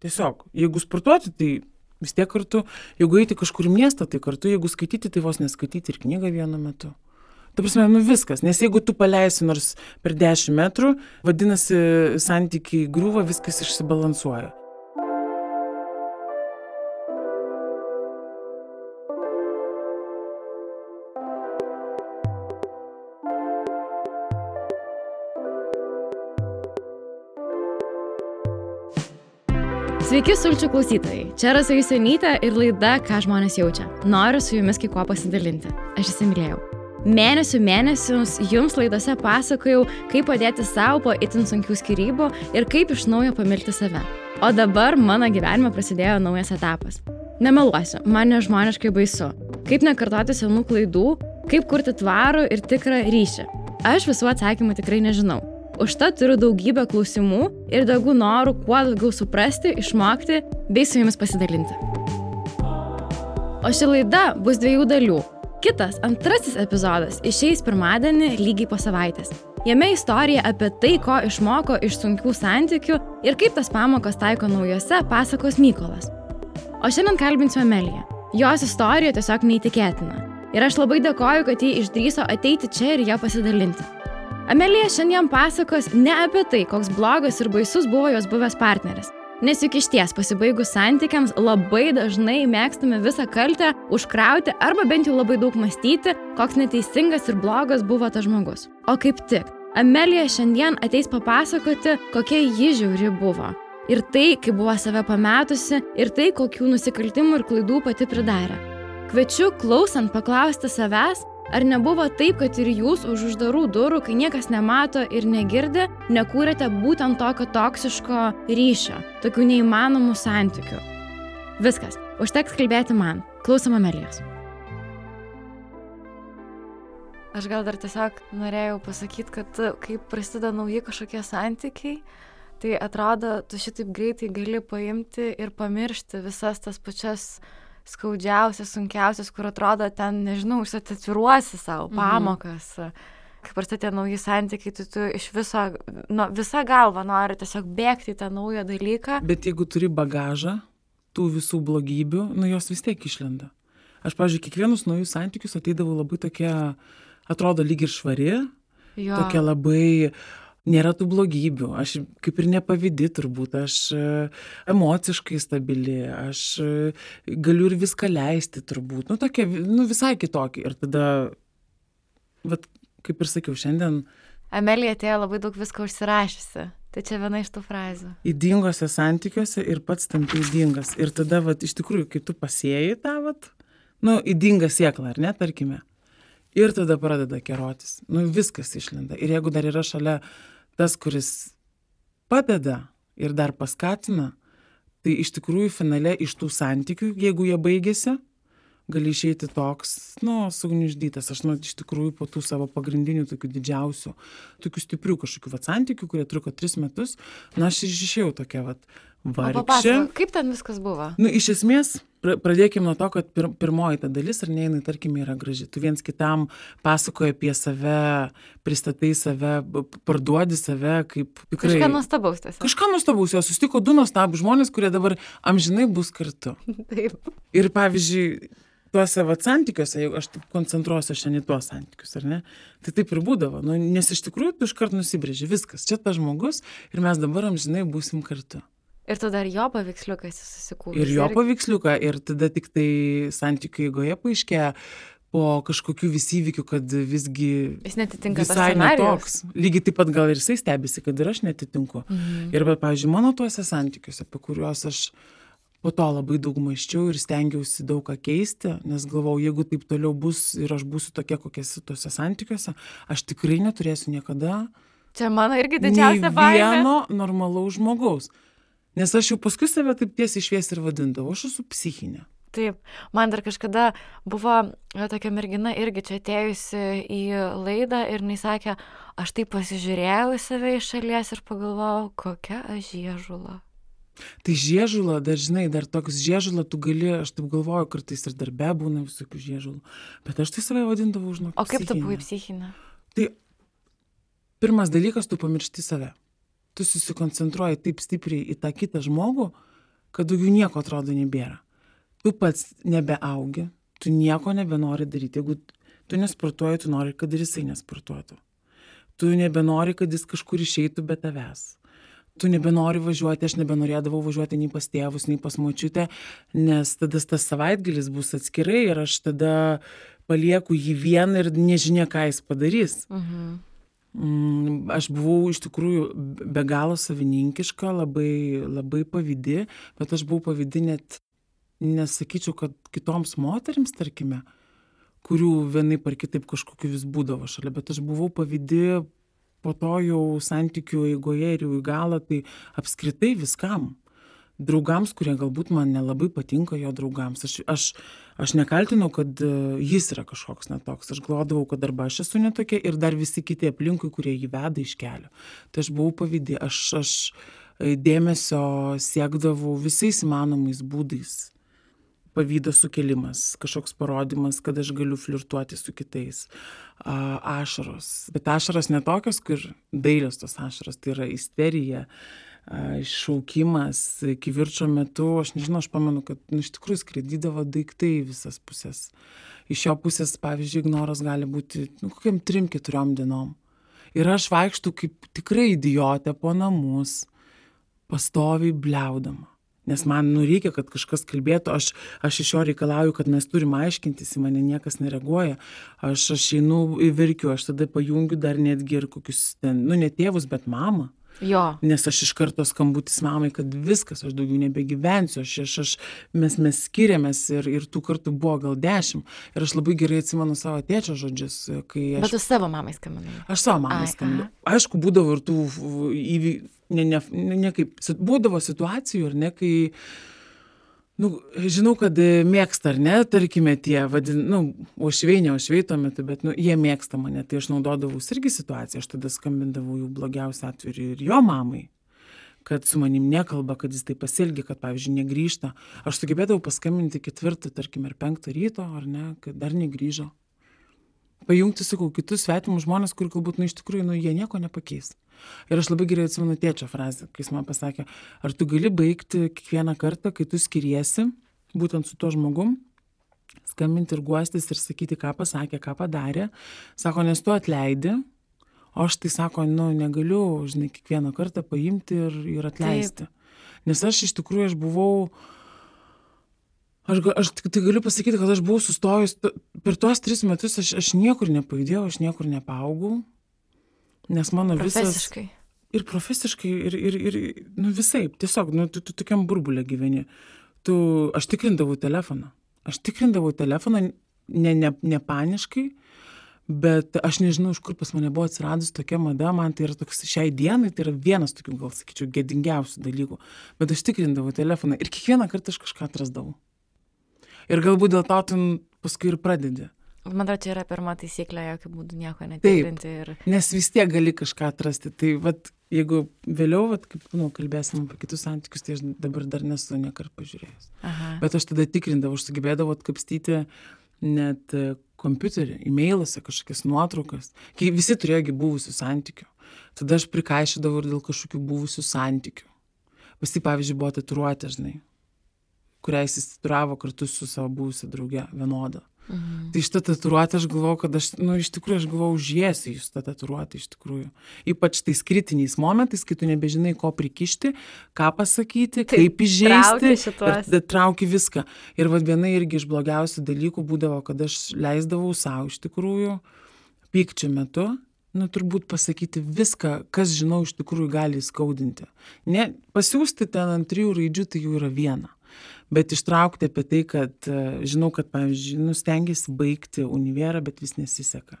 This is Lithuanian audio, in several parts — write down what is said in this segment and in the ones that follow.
Tiesiog, jeigu sportuoti, tai vis tiek kartu, jeigu eiti kažkur į miestą, tai kartu, jeigu skaityti, tai vos neskaityti ir knygą vienu metu. Ta prasme, viskas, nes jeigu tu paleisi nors per 10 metrų, vadinasi, santykiai griūva, viskas išsibalansuoja. Sveiki, sulčių klausytojai. Čia Rasa Jusionytė ir laida Ką žmonės jaučia. Noriu su jumis kai kuo pasidalinti. Aš įsimylėjau. Mėnesius jums laidose pasakojau, kaip padėti savo po itin sunkių skyrybų ir kaip iš naujo pamilti save. O dabar mano gyvenime prasidėjo naujas etapas. Nemeluosiu, man nežmoniškai baisu. Kaip nekartoti senų klaidų, kaip kurti tvarų ir tikrą ryšį. Aš visų atsakymų tikrai nežinau. Užtat turiu daugybę klausimų ir daugų norų kuo daugiau suprasti, išmokti bei su jumis pasidalinti. O ši laida bus 2 dalių. Kitas, antrasis epizodas išeis pirmadienį lygiai po savaitės. Jame istorija apie tai, ko išmoko iš sunkių santykių ir kaip tas pamokas taiko naujose, pasakos Mykolas. O šiandien kalbinsiu Ameliją. Jos istorija tiesiog neįtikėtina. Ir aš labai dėkoju, kad ji išdrįso ateiti čia ir ją pasidalinti. Amelija šiandien pasakos ne apie tai, koks blogas ir baisus buvo jos buvęs partneris. Nes juk išties pasibaigus santykiams labai dažnai mėgstame visą kaltę užkrauti arba bent jau labai daug mąstyti, koks neteisingas ir blogas buvo tas žmogus. O kaip tik, Amelija šiandien ateis papasakoti, kokia ji žiauri buvo. Ir tai, kaip buvo save pametusi, ir tai, kokių nusikaltimų ir klaidų pati pridarė. Kviečiu klausant paklausti savęs, ar nebuvo taip, kad ir jūs už uždarų durų, kai niekas nemato ir negirdi, nekūrėte būtent tokio toksiško ryšio, tokių neįmanomų santykių? Viskas, užteks kalbėti man. Klausom Amelijos. Aš gal dar tiesiog norėjau pasakyti, kad kai prasideda nauji kažkokie santykiai, tai atrodo, tu šitaip greitai gali paimti ir pamiršti visas tas pačias skaudžiausias, sunkiausias, kur atrodo ten, nežinau, užsitatiruosi savo pamokas. Kai prasideda nauji santykiai, tu iš visą galvą nori tiesiog bėgti į tą naują dalyką. Bet jeigu turi bagažą, tų visų blogybių, jos vis tiek išlenda. Aš, pavyzdžiui, kiekvienus naujus santykius ateidavau labai tokia, atrodo lyg ir švari, tokia labai, nėra tų blogybių, aš kaip ir nepavydi turbūt, aš emociškai stabili, aš galiu ir viską leisti turbūt, tokia, visai kitokia. Ir tada, kaip ir sakiau, šiandien... Amelija atėjo labai daug visko užsirašysi, tai čia viena iš tų frazių. Ydingose santykiuose ir pats tampi ydingas. Ir tada, iš tikrųjų, kai tu pasėjai tą, ydingą sėklą, ar ne, tarkime, ir tada pradeda kerotis, viskas išlenda. Ir jeigu dar yra šalia tas, kuris padeda ir dar paskatina, tai iš tikrųjų finale iš tų santykių, jeigu jie baigėsi, gali išeiti toks, sugniuždytas. Aš iš tikrųjų po tų savo pagrindinių tokių didžiausių, tokių stiprių kažkokių santykių, kurie truko 3 metus, aš išėjau tokia vargšė. Kaip ten viskas buvo? Iš esmės, pradėkime nuo to, kad pirmoji ta dalis, ar ne, jinai, tarkime, yra graži. Tu viens kitam pasakoji apie save, pristatai save, parduodi save kaip tikrai... Kažką nuostabaus tiesiog. Kažką nuostabaus, jos susitiko 2 nuostabūs žmonės, kurie dabar amžinai bus kartu. Taip. Ir pavyzdžiui, tuose santykiuose, jeigu aš taip koncentruosiu šiandien į tuos santykius, ar ne, tai taip ir būdavo. Nes iš tikrųjų tu iškart nusibrėži viskas. Čia tas žmogus ir mes dabar amžinai būsim kartu. Ir tu dar jo paveiksliuką esi susikūręs. Ir jo paveiksliuką, ir tada tik tai santykių eigoje paaiškėja po kažkokių vis įvykių, kad visgi jis netitinka visai netoks. Lygiai taip pat gal ir jisai stebisi, kad ir aš netitinku. Ir pavyzdžiui, mano tuose santykiuose, apie kuriuos aš po to labai daug mąsčiau ir stengiausi daug ką keisti, nes galvau, jeigu taip toliau bus ir aš būsiu tokia, kokia esu tuose santykiuose, aš tikrai neturėsiu niekada čia mano irgi didžiausia baimė. Vieno normalaus žmogaus. Nes aš jau paskui save taip tiesiai šviesiai ir vadindavau, aš esu psichinė. Taip, man dar kažkada buvo tokia mergina irgi čia atėjusi į laidą ir jinai sakė, aš taip pasižiūrėjau į save iš šalies ir pagalvojau, kokia aš žiežula. Tai žiežula, dar toks žiežula tu gali, aš taip galvoju, kartais ir darbe būna visokių žiežulų, bet aš tai save vadindavau, žinok, psichinė. O kaip tu buvai psichinė? Tai pirmas dalykas, tu pamiršti save. Tu susikoncentruoji taip stipriai į tą kitą žmogų, kad daugiau nieko atrodo nebėra. Tu pats nebeaugi, tu nieko nebenori daryti. Jeigu tu nesportuoji, tu nori, kad ir jisai nesportuotų. Tu nebenori, kad jis kažkur išeitų be tavęs. Tu nebenori važiuoti, aš nebenorėdavau važiuoti nei pas tėvus, nei pas močiutę, nes tada tas savaitgalis bus atskirai ir aš tada palieku jį vieną ir nežinia, ką jis padarys. Aš buvau iš tikrųjų be galo savininkiška, labai, labai pavydi, bet aš buvau pavydi net, nesakyčiau, kad kitoms moterims, tarkime, kurių vienaip ar kitaip kažkokiu vis būdavo šalia, bet aš buvau pavydi po to jau santykių eigoje ir jau į galą, tai apskritai viskam. Draugams, kurie galbūt man nelabai patinka jo draugams. Aš nekaltinau, kad jis yra kažkoks netoks. Aš galvodavau, kad arba aš esu netokia ir dar visi kiti aplinkui, kurie jį veda iš kelio. Tai aš buvau pavydi. Aš dėmesio siekdavau visais įmanomais būdais. Pavydo sukelimas, kažkoks parodymas, kad aš galiu flirtuoti su kitais. Ašaros. Bet ašaros netokios, kur dailios tos ašaros, tai yra isterija, šaukimas, kivirčo metu, aš nežinau, aš pamenu, kad iš tikrųjų skraidydavo daiktai visas pusės. Iš jo pusės, pavyzdžiui, ignoras gali būti kokiam 3-4 dienom. Ir aš vaikštu kaip tikrai idiotė po namus, pastoviai bliaudama. Nes man reikia, kad kažkas kalbėtų, aš iš jo reikalauju, kad mes turim aiškintis, į mane niekas nereaguoja, aš einu verkiu, aš tada pajungiu dar netgi ir kokius ten, ne tėvus, bet mamą. Jo. Nes aš iš karto skambutis mamai, kad viskas, aš daugiau nebegyvensiu, mes skiriamės ir tų kartų buvo gal 10. Ir aš labai gerai atsimenu savo tėčio žodžius, kai aš... Bet tu savo mamai skambinai? Aš savo mamai skambinau. Aišku, būdavo ir tų įvykių, ne kaip, būdavo situacijų, ar ne, kai, žinau, kad mėgsta, ar ne, tarkime tie, ošviai tuo metu, bet, jie mėgsta mane, tai aš naudodavau irgi situaciją, aš tada skambindavau jų blogiausią atveju ir jo mamai, kad su manim nekalba, kad jis tai pasielgia, kad, pavyzdžiui, negrįžta. Aš sugebėdavau paskambinti 4, tarkime, ar 5 ryto, ar ne, kad dar negrįžo. Pajungti, sakau, kitus svetimus žmonės, kur galbūt, iš tikrųjų, jie nieko nepakeis. Ir aš labai gerai atsimenu tėčio frazę, kai jis man pasakė, ar tu gali baigti kiekvieną kartą, kai tu skiriesi, būtent su tuo žmogum, skambinti ir guostis ir sakyti, ką pasakė, ką padarė. Sako, nes tu atleidi, o aš tai sako, negaliu, žinai, kiekvieną kartą paimti ir atleisti. Taip. Nes aš iš tikrųjų, aš buvau... Aš tai galiu pasakyti, kad aš buvau sustojus, per tuos 3 metus aš niekur nepajudėjau, aš niekur nepaugau, nes mano profesiškai. Ir profesiškai, ir visaip, tiesiog, tu tokiam burbulė gyveni. Aš tikrindavau telefoną, ne paniškai, bet aš nežinau, iš kur pas mane buvo atsiradus tokia mada, man tai yra toks šiai dienai, tai yra vienas tokių, gal sakyčiau, gėdingiausių dalykų, bet aš tikrindavau telefoną ir kiekvieną kartą aš kažką atrasdavau. Ir galbūt dėl to tu paskui ir pradedi. Man atrodo, čia yra pirma taisyklė, jokių būdų nieko netikrinti. Taip, nes vis tiek gali kažką atrasti. Tai jeigu vėliau, kaip kalbėsim apie kitus santykius, tai aš dabar dar nesu niekart pažiūrėjęs. Aha. Bet aš tada tikrindavau, aš sugebėdavau atkapstyti net kompiuterį, e-mailuose kažkokias nuotraukas. Kai visi turėjo buvusių santykių. Tada aš prikaišydavau ir dėl kažkokių buvusių santykių. Pas jį, pavyzdžiui, buvo tatuiruotė, žinai, kurią jis įsitatuiravo kartu su savo buvusia drauge vienodą. Tai šitą tatuiruotę aš galvojau, kad iš tikrųjų aš galvojau, užjėsiu į šitą tatuiruotę iš tikrųjų. Ypač tais kritiniais momentais, kai tu nebežinai, ko prikišti, ką pasakyti, kaip įžeisti, trauki viską. Ir viena irgi iš blogiausių dalykų būdavo, kad aš leisdavau savo iš tikrųjų pykčio metu, turbūt pasakyti viską, kas žinau iš tikrųjų gali skaudinti. Ne, pasiųsti ten ant 3 raidžių, tai jau yra viena. Bet ištraukti apie tai, kad žinau, kad, pavyzdžiui, stengiasi baigti univerą, bet vis nesiseka.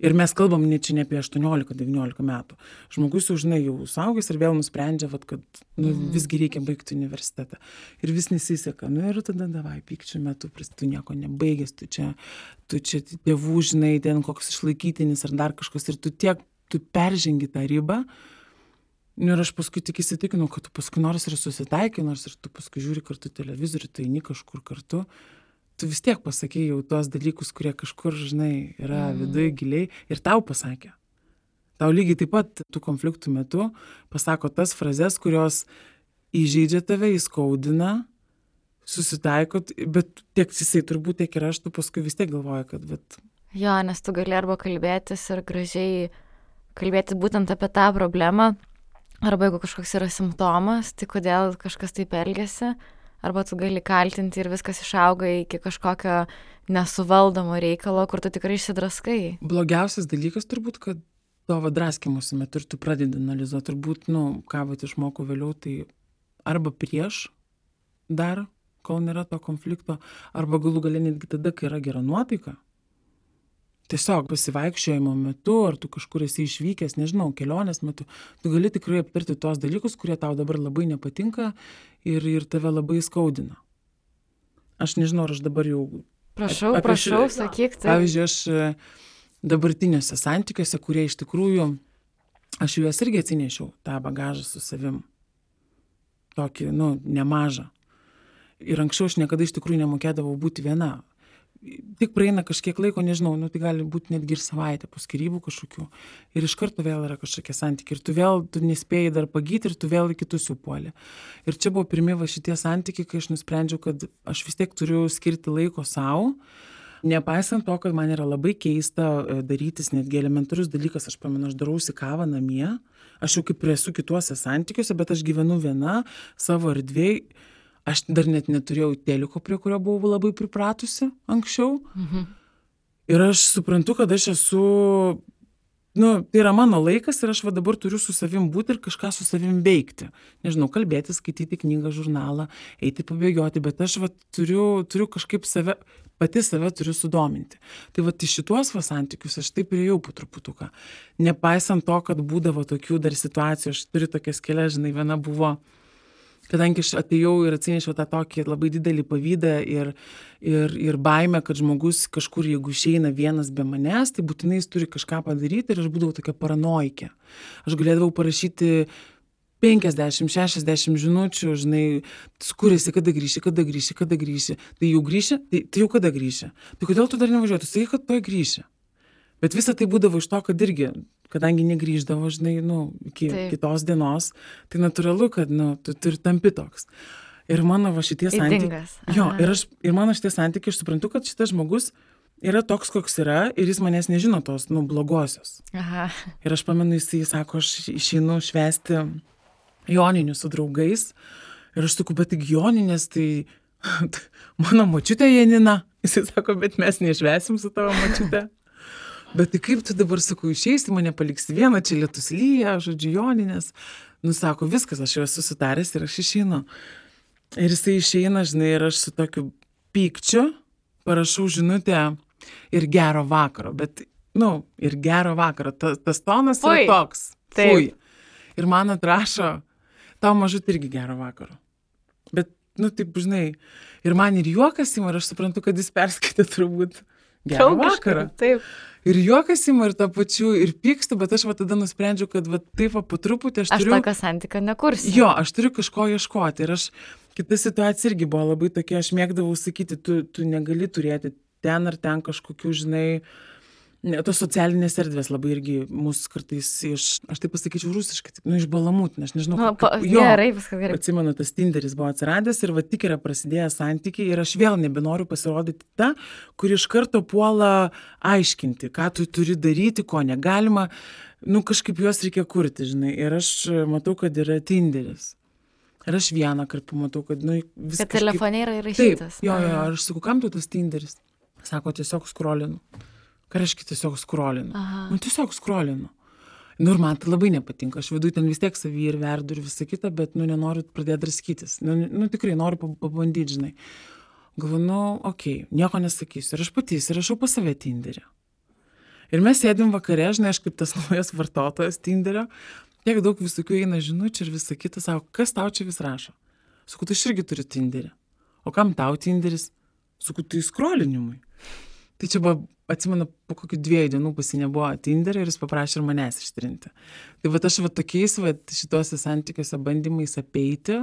Ir mes kalbam čia ne apie 18-19 metų. Žmogus jau, žinai, jau suaugęs ir vėl nusprendžia, kad visgi reikia baigti universitetą. Ir vis nesiseka. Ir tada davai, pykčio metu, tu nieko nebaigęs, tu čia tėvų, žinai, ten koks išlaikytinis ar dar kažkas. Ir tu peržengi tą ribą. Ir aš paskui tik įsitikinau, kad tu paskui nors ir susitaikai, nors ir tu paskui žiūri kartu televizorių, tu eini kažkur kartu, tu vis tiek pasakei jau tuos dalykus, kurie kažkur, žinai, yra viduje giliai ir tau pasakė. Tau lygiai taip pat tų konfliktų metu pasako tas frazes, kurios įžeidžia tave, įskaudina, susitaikot, bet tiek jisai turbūt, tiek ir aš, tu paskui vis tiek galvoji, kad vat... Jo, nes tu gali arba kalbėtis ir gražiai kalbėti būtent apie tą problemą, arba jeigu kažkoks yra simptomas, tai kodėl kažkas taip elgiasi, arba tu gali kaltinti ir viskas išauga iki kažkokio nesuvaldomo reikalo, kur tu tikrai išsidraskai. Blogiausias dalykas turbūt, kad tavo draskimusi metu ir tu pradedi analizuoti, turbūt, ką vat išmokau vėliau, tai arba prieš dar, kol nėra to konflikto, arba galų gale netgi tada, kai yra gera nuotaika. Tiesiog pasivaikščiojimo metu, ar tu kažkur esi išvykęs, nežinau, kelionės metu, tu gali tikrai aptarti tos dalykus, kurie tau dabar labai nepatinka ir tave labai skaudina. Aš nežinau, ar aš dabar jau... Prašau, sakyk. Tai... Pavyzdžiui, aš dabartiniuose santykiuose, kurie iš tikrųjų, aš juos irgi atsinešiau, tą bagažą su savim. Tokį, nemažą. Ir anksčiau aš niekada iš tikrųjų nemokėdavau būti viena. Tik praeina kažkiek laiko, nežinau, tai gali būti netgi ir savaitę po skyrybų kažkokių. Ir iš karto vėl yra kažkokie santykiai. Ir tu nespėjai dar pagyti ir tu vėl į kitus jau puoli. Ir čia buvo pirmi šitie santykiai, kai aš nusprendžiau, kad aš vis tiek turiu skirti laiko savo. Nepaisant to, kad man yra labai keista darytis netgi elementarus dalykas, aš pamenu, aš darausi kavą namie. Aš jau kaip esu kituose santykiuose, bet aš gyvenu viena savo erdvėj. Aš dar net neturėjau teliko, prie kurio buvau labai pripratusi anksčiau. Mhm. Ir aš suprantu, kad aš esu, tai yra mano laikas ir aš dabar turiu su savim būti ir kažką su savim veikti. Nežinau, kalbėti, skaityti knygą, žurnalą, eiti pabėgioti, bet aš turiu kažkaip pati save turiu sudominti. Tai į šituos santykius aš taip priėjau po truputuką. Nepaisant to, kad būdavo tokių dar situacijų, aš turiu tokias kelias, viena buvo, kadangi aš atėjau ir atsinešiau tą tokį labai didelį pavydą ir baimę, kad žmogus kažkur, jeigu išeina vienas be manęs, tai būtinai jis turi kažką padaryti ir aš būdavau tokia paranoikė. Aš galėdavau parašyti 50-60 žinučių, kur esi, kada grįši. Tai jau grįši, tai jau kada grįši. Tai kodėl tu dar nevažiuoji? Tu sakai, kad tuoj grįši. Bet visa tai būdavo iš to, kad irgi, kadangi negrįždavo, iki kitos dienos, tai natūralu, kad, tu ir tampi toks. Ir mano šitie santykiai. Jo, ir mano šitie santykiai, aš suprantu, kad šitas žmogus yra toks, koks yra, ir jis manęs nežino tos, blogosios. Aha. Ir aš pamenu, jis sako, aš išeinu švęsti joninių su draugais. Ir aš sakau, bet tik joninės, tai mano močiutė Janina. Jis sako, bet mes nešvęsim su tavo močiute. Bet tai kaip tu dabar, sakau, išeisi, mane paliksi vieną, čia lietus lyja, joninės. Sako, viskas, aš jau esu sutaręs ir aš išeinu. Ir jisai išeina, ir aš su tokiu pykčiu parašau žinutę ir gero vakaro. Bet, ir gero vakaro. Tas tonas yra toks. Fui. Ir man atrašo, tau mažut irgi gero vakaro. Bet, taip, ir man ir juokas ima, ir aš suprantu, kad jis perskaitė turbūt gero vakaro. Taip. Ir juokas ima ir to pačiu, ir pykstu, bet aš tada nusprendžiau, kad taip po truputį aš turiu... Aš tokio santykio nekursiu. Jo, aš turiu kažko ieškoti. Ir kita situacija irgi buvo labai tokia, aš mėgdavau sakyti, tu negali turėti ten ar ten kažkokių, tos socialinės erdvės labai irgi mūsų kartais aš taip pasakyčiau rusiškai, iš balamūtinę, aš nežinau. Gerai, viskas gerai. Atsimenu, tas Tinderis buvo atsiradęs ir tik yra prasidėję santykiai ir aš vėl nebenoriu pasirodyti ta, kuri iš karto puola aiškinti, ką tu turi daryti, ko negalima, kažkaip juos reikia kurti, Ir aš matau, kad yra Tinderis. Ir aš vieną kartą pamatau, kad, viskas... Bet telefone yra įrašytas. Taip, jo, aš sakau, kam tu tas Tinderis? Sako, tiesiog skrolinu. Ką reiškia tiesiog skrolinu? Tiesiog skrolinu. Ir man tai labai nepatinka. Aš viduj ten vis tiek savį ir verdu ir visą kitą, bet, nenoriu pradėti draskytis. Tikrai noriu pabandyti, Galvoju, okei, nieko nesakysiu. Ir aš pati įsirašau pas save Tinderį. Ir mes sėdim vakare, aš kaip tas naujas vartotojas Tinderio, tiek daug visokių eina žinučių ir visą kitą, sako, kas tau čia vis rašo? Sakau, tu irgi turi Tinderį. O kam tau Tinderis? Sakau, tai skrolinimui. Tai čia buvo, atsimenu, po kokių 2 dienų pas jį nebuvo Tinderio ir jis paprašė ir manęs ištrinti. Tai aš tokiais šituose santykiuose bandymais apeiti,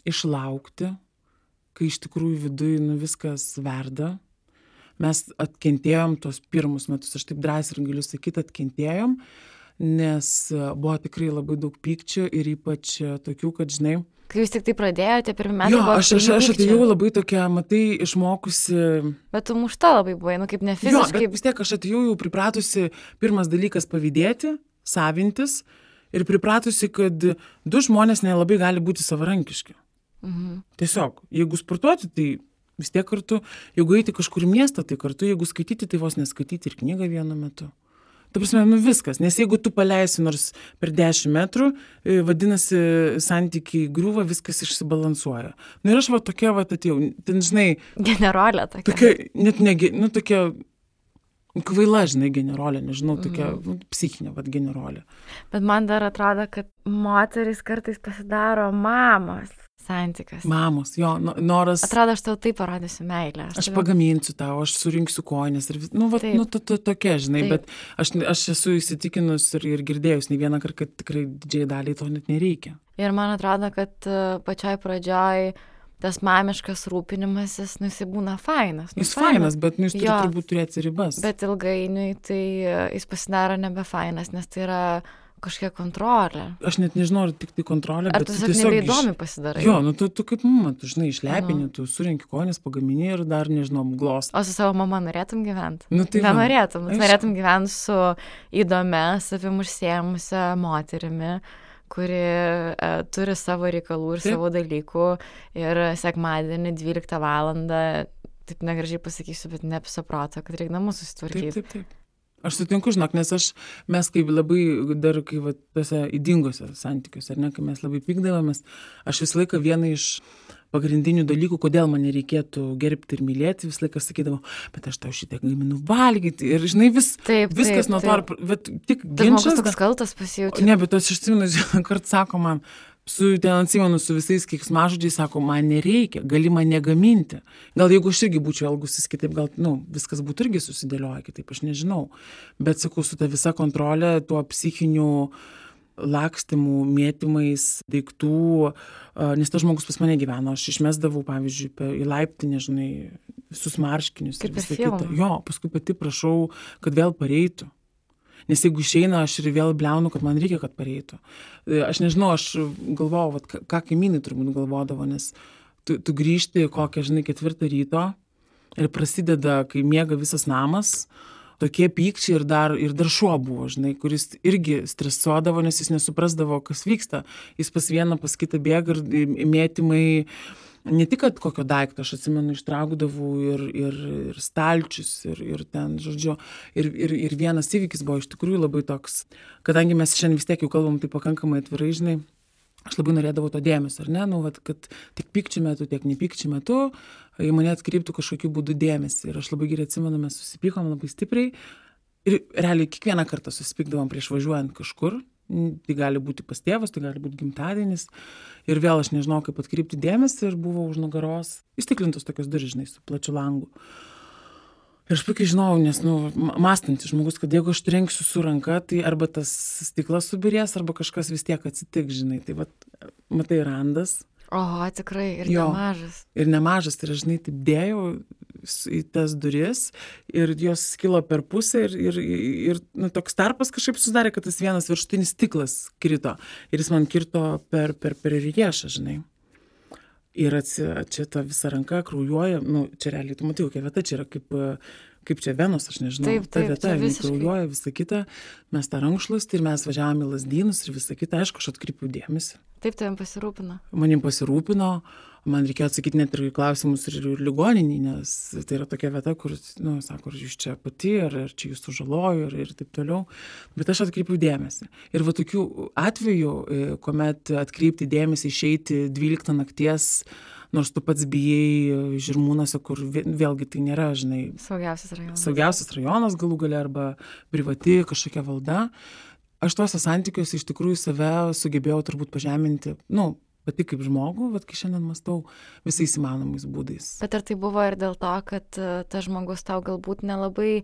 išlaukti, kai iš tikrųjų viduj viskas verda. Mes atkentėjom tos pirmus metus, aš taip drąsiai ir galiu sakyti, atkentėjom, nes buvo tikrai labai daug pykčio ir ypač tokių, kad, žinai, Kai jūs tik tai pradėjote, pirmi metai jo, buvo aš pilni atėjau pykčio. labai tokia, matai, išmokusi. Bet tu mušta labai buvai, kaip ne Jo, fiziškai. bet vis tiek aš atėjau jau pripratusi, pirmas dalykas pavydėti, savintis ir pripratusi, kad du žmonės nelabai gali būti savarankiški. Tiesiog, jeigu sportuoti, tai vis tiek kartu, jeigu eiti kažkur į miestą, tai kartu, jeigu skaityti, tai vos neskaityti ir knygą vienu metu. Ta prasme, viskas, nes jeigu tu paleisi nors per 10 metrų, vadinasi, santykiai griūva, viskas išsibalansuoja. Ir aš tokia atėjau, ten, žinai, Generolė tokia. tokia, net negi, tokia kvaila, žinai, generolė, nežinau, tokia psichinė, generolė. Bet man dar atrodo, kad moteris kartais pasidaro mamos santykiuose. Mamos, jo, noras. Atrodo, aš tau taip parodysiu meilę. Aš pagaminsiu tau, aš surinksiu koinės ir tokia, žinai, Taip. bet aš esu įsitikinus ir girdėjus ne vieną kartą, kad tikrai didžiai daliai to net nereikia. Ir man atrodo, kad pačioj pradžioj tas mamiškas rūpinimasis, jisai būna fainas. Jis fainas, bet jis turi Jo. turbūt turėti ribas. Bet ilgainiui tai jis pasidaro nebefainas, nes tai yra kažkokia kontrolė. Aš net nežinau, ar tik tai kontrolė, Ar bet tu tiesiog nebeįdomi pasidarai? Jo, tu kaip mama, tu žinai, išlepini, tu surinki koinės, pagamini ir dar, nežinau, glost. O su savo mama norėtum gyventi? Tai va. Nenorėtum. Aišku. Norėtum gyventi su įdomia, savim užsiėmusia moterimi, kuri turi savo reikalų ir Taip. savo dalykų. Ir sekmadienį 12 valandą, taip negražiai pasakysiu, bet ne apso proto, kad reikia namus susitvarkyti. Taip. Aš sutinku, žinok, nes mes kaip labai dar, kai tose įdingose santykiuose, ar ne, kai mes labai pykdavomės, aš visą laiką vieną iš pagrindinių dalykų, kodėl man nereikėtų gerbti ir mylėti, visą laiką sakydavau, bet aš tau šitą gaminu valgyti ir, žinai, viskas nuo to, bet tik Tas žmogus ginčas. toks kaltas pasijaučia. Ne, bet aš atsimenu, vieną kartą sako man, su visais keiksmažodžiais, sako, man nereikia, gali man negaminti. Gal jeigu aš irgi būčiau elgusis kitaip, gal, viskas būtų irgi susidėlioja kitaip, aš nežinau. Bet, sakau, su ta visa kontrolė, tuo psichiniu lakstimų, mėtymais, daiktų, nes tas žmogus pas mane gyveno, aš išmesdavau, pavyzdžiui, į laiptinę, žinai, visus marškinius ir Kaip per visą filmą. kitą. Jo, paskui pati prašau, kad vėl pareitų. Nes jeigu išeina, aš ir vėl bliaunu, kad man reikia, kad pareitų. Aš nežinau, aš galvojau, ką kaimynai turbūt galvodavo, nes tu grįžti kokią, žinai, 4 ryto ir prasideda, kai miega visas namas, tokie pykčiai ir dar šuo buvo, žinai, kuris irgi stresuodavo, nes jis nesuprasdavo, kas vyksta. Jis pas vieną, pas kitą bėga ir mėtymai, ne tik, kad kokio daikto, aš atsimenu, ištraukdavau ir stalčius, ir ten, žodžiu, ir vienas įvykis buvo iš tikrųjų labai toks, kadangi mes šiandien vis tiek jau kalbam tai pakankamai atvirai, žinai, aš labai norėdavau to dėmesio, ar ne, kad tiek pykčių metu, tiek nepykčių metu, į mane atkreiptų kažkokiu būdu dėmesį. Ir aš labai gerai atsimenu, mes susipykom labai stipriai ir realiai kiekvieną kartą susipykdavom prieš važiuojant kažkur. Tai gali būti pas tėvas, tai gali būti gimtadienis. Ir vėl aš nežinau, kaip atkreipti dėmesį ir buvo už nugaros įstiklintos tokios durys, žinai, su plačiu langu. Ir aš puikiai žinau, nes, mąstantis žmogus, kad jeigu aš trenksiu su ranka, tai arba tas stiklas subirės, arba kažkas vis tiek atsitiks, žinai. Tai matai, randas. Oho, tikrai, ir Jo. nemažas. Ir nemažas, tai aš, žinai, taip dėjau į tas duris ir jos skilo per pusę ir toks tarpas kažkaip susidarė, kad tas vienas viršutinis stiklas krito ir jis man kirto per riešą, žinai. Ir čia ta visa ranka kraujuoja, čia realiai, tu matai, kokia vieta, čia yra kaip čia venos, aš nežinau, Taip, ta vieta, čia jinai visiškai. kraujuoja, visa kita, mes tą rankšluostį ir mes važiavome į Lazdynus ir visa kita, aišku, aš atkreipiau dėmesį. Taip tavim pasirūpino. Manim pasirūpino, man reikėjo atsakyti net ir į klausimus ir ligoninį, nes tai yra tokia vieta, kur, sako, ar jūs čia pati, ar čia jūs sužalojo ir taip toliau. Bet aš atkreipiau dėmesį. Ir va tokių atvejų, kuomet atkreipti dėmesį, išeiti 12 nakties, nors tu pats bijai Žirmūnuose, kur vėlgi tai nėra, žinai, saugiausias rajonas galų gale arba privati kažkokia valda. Aš tuose santykiuose iš tikrųjų save sugebėjau turbūt pažeminti, pati kaip žmogų, kai šiandien mąstau visais įmanomais būdais. Bet ar tai buvo ir dėl to, kad tas žmogus tau galbūt nelabai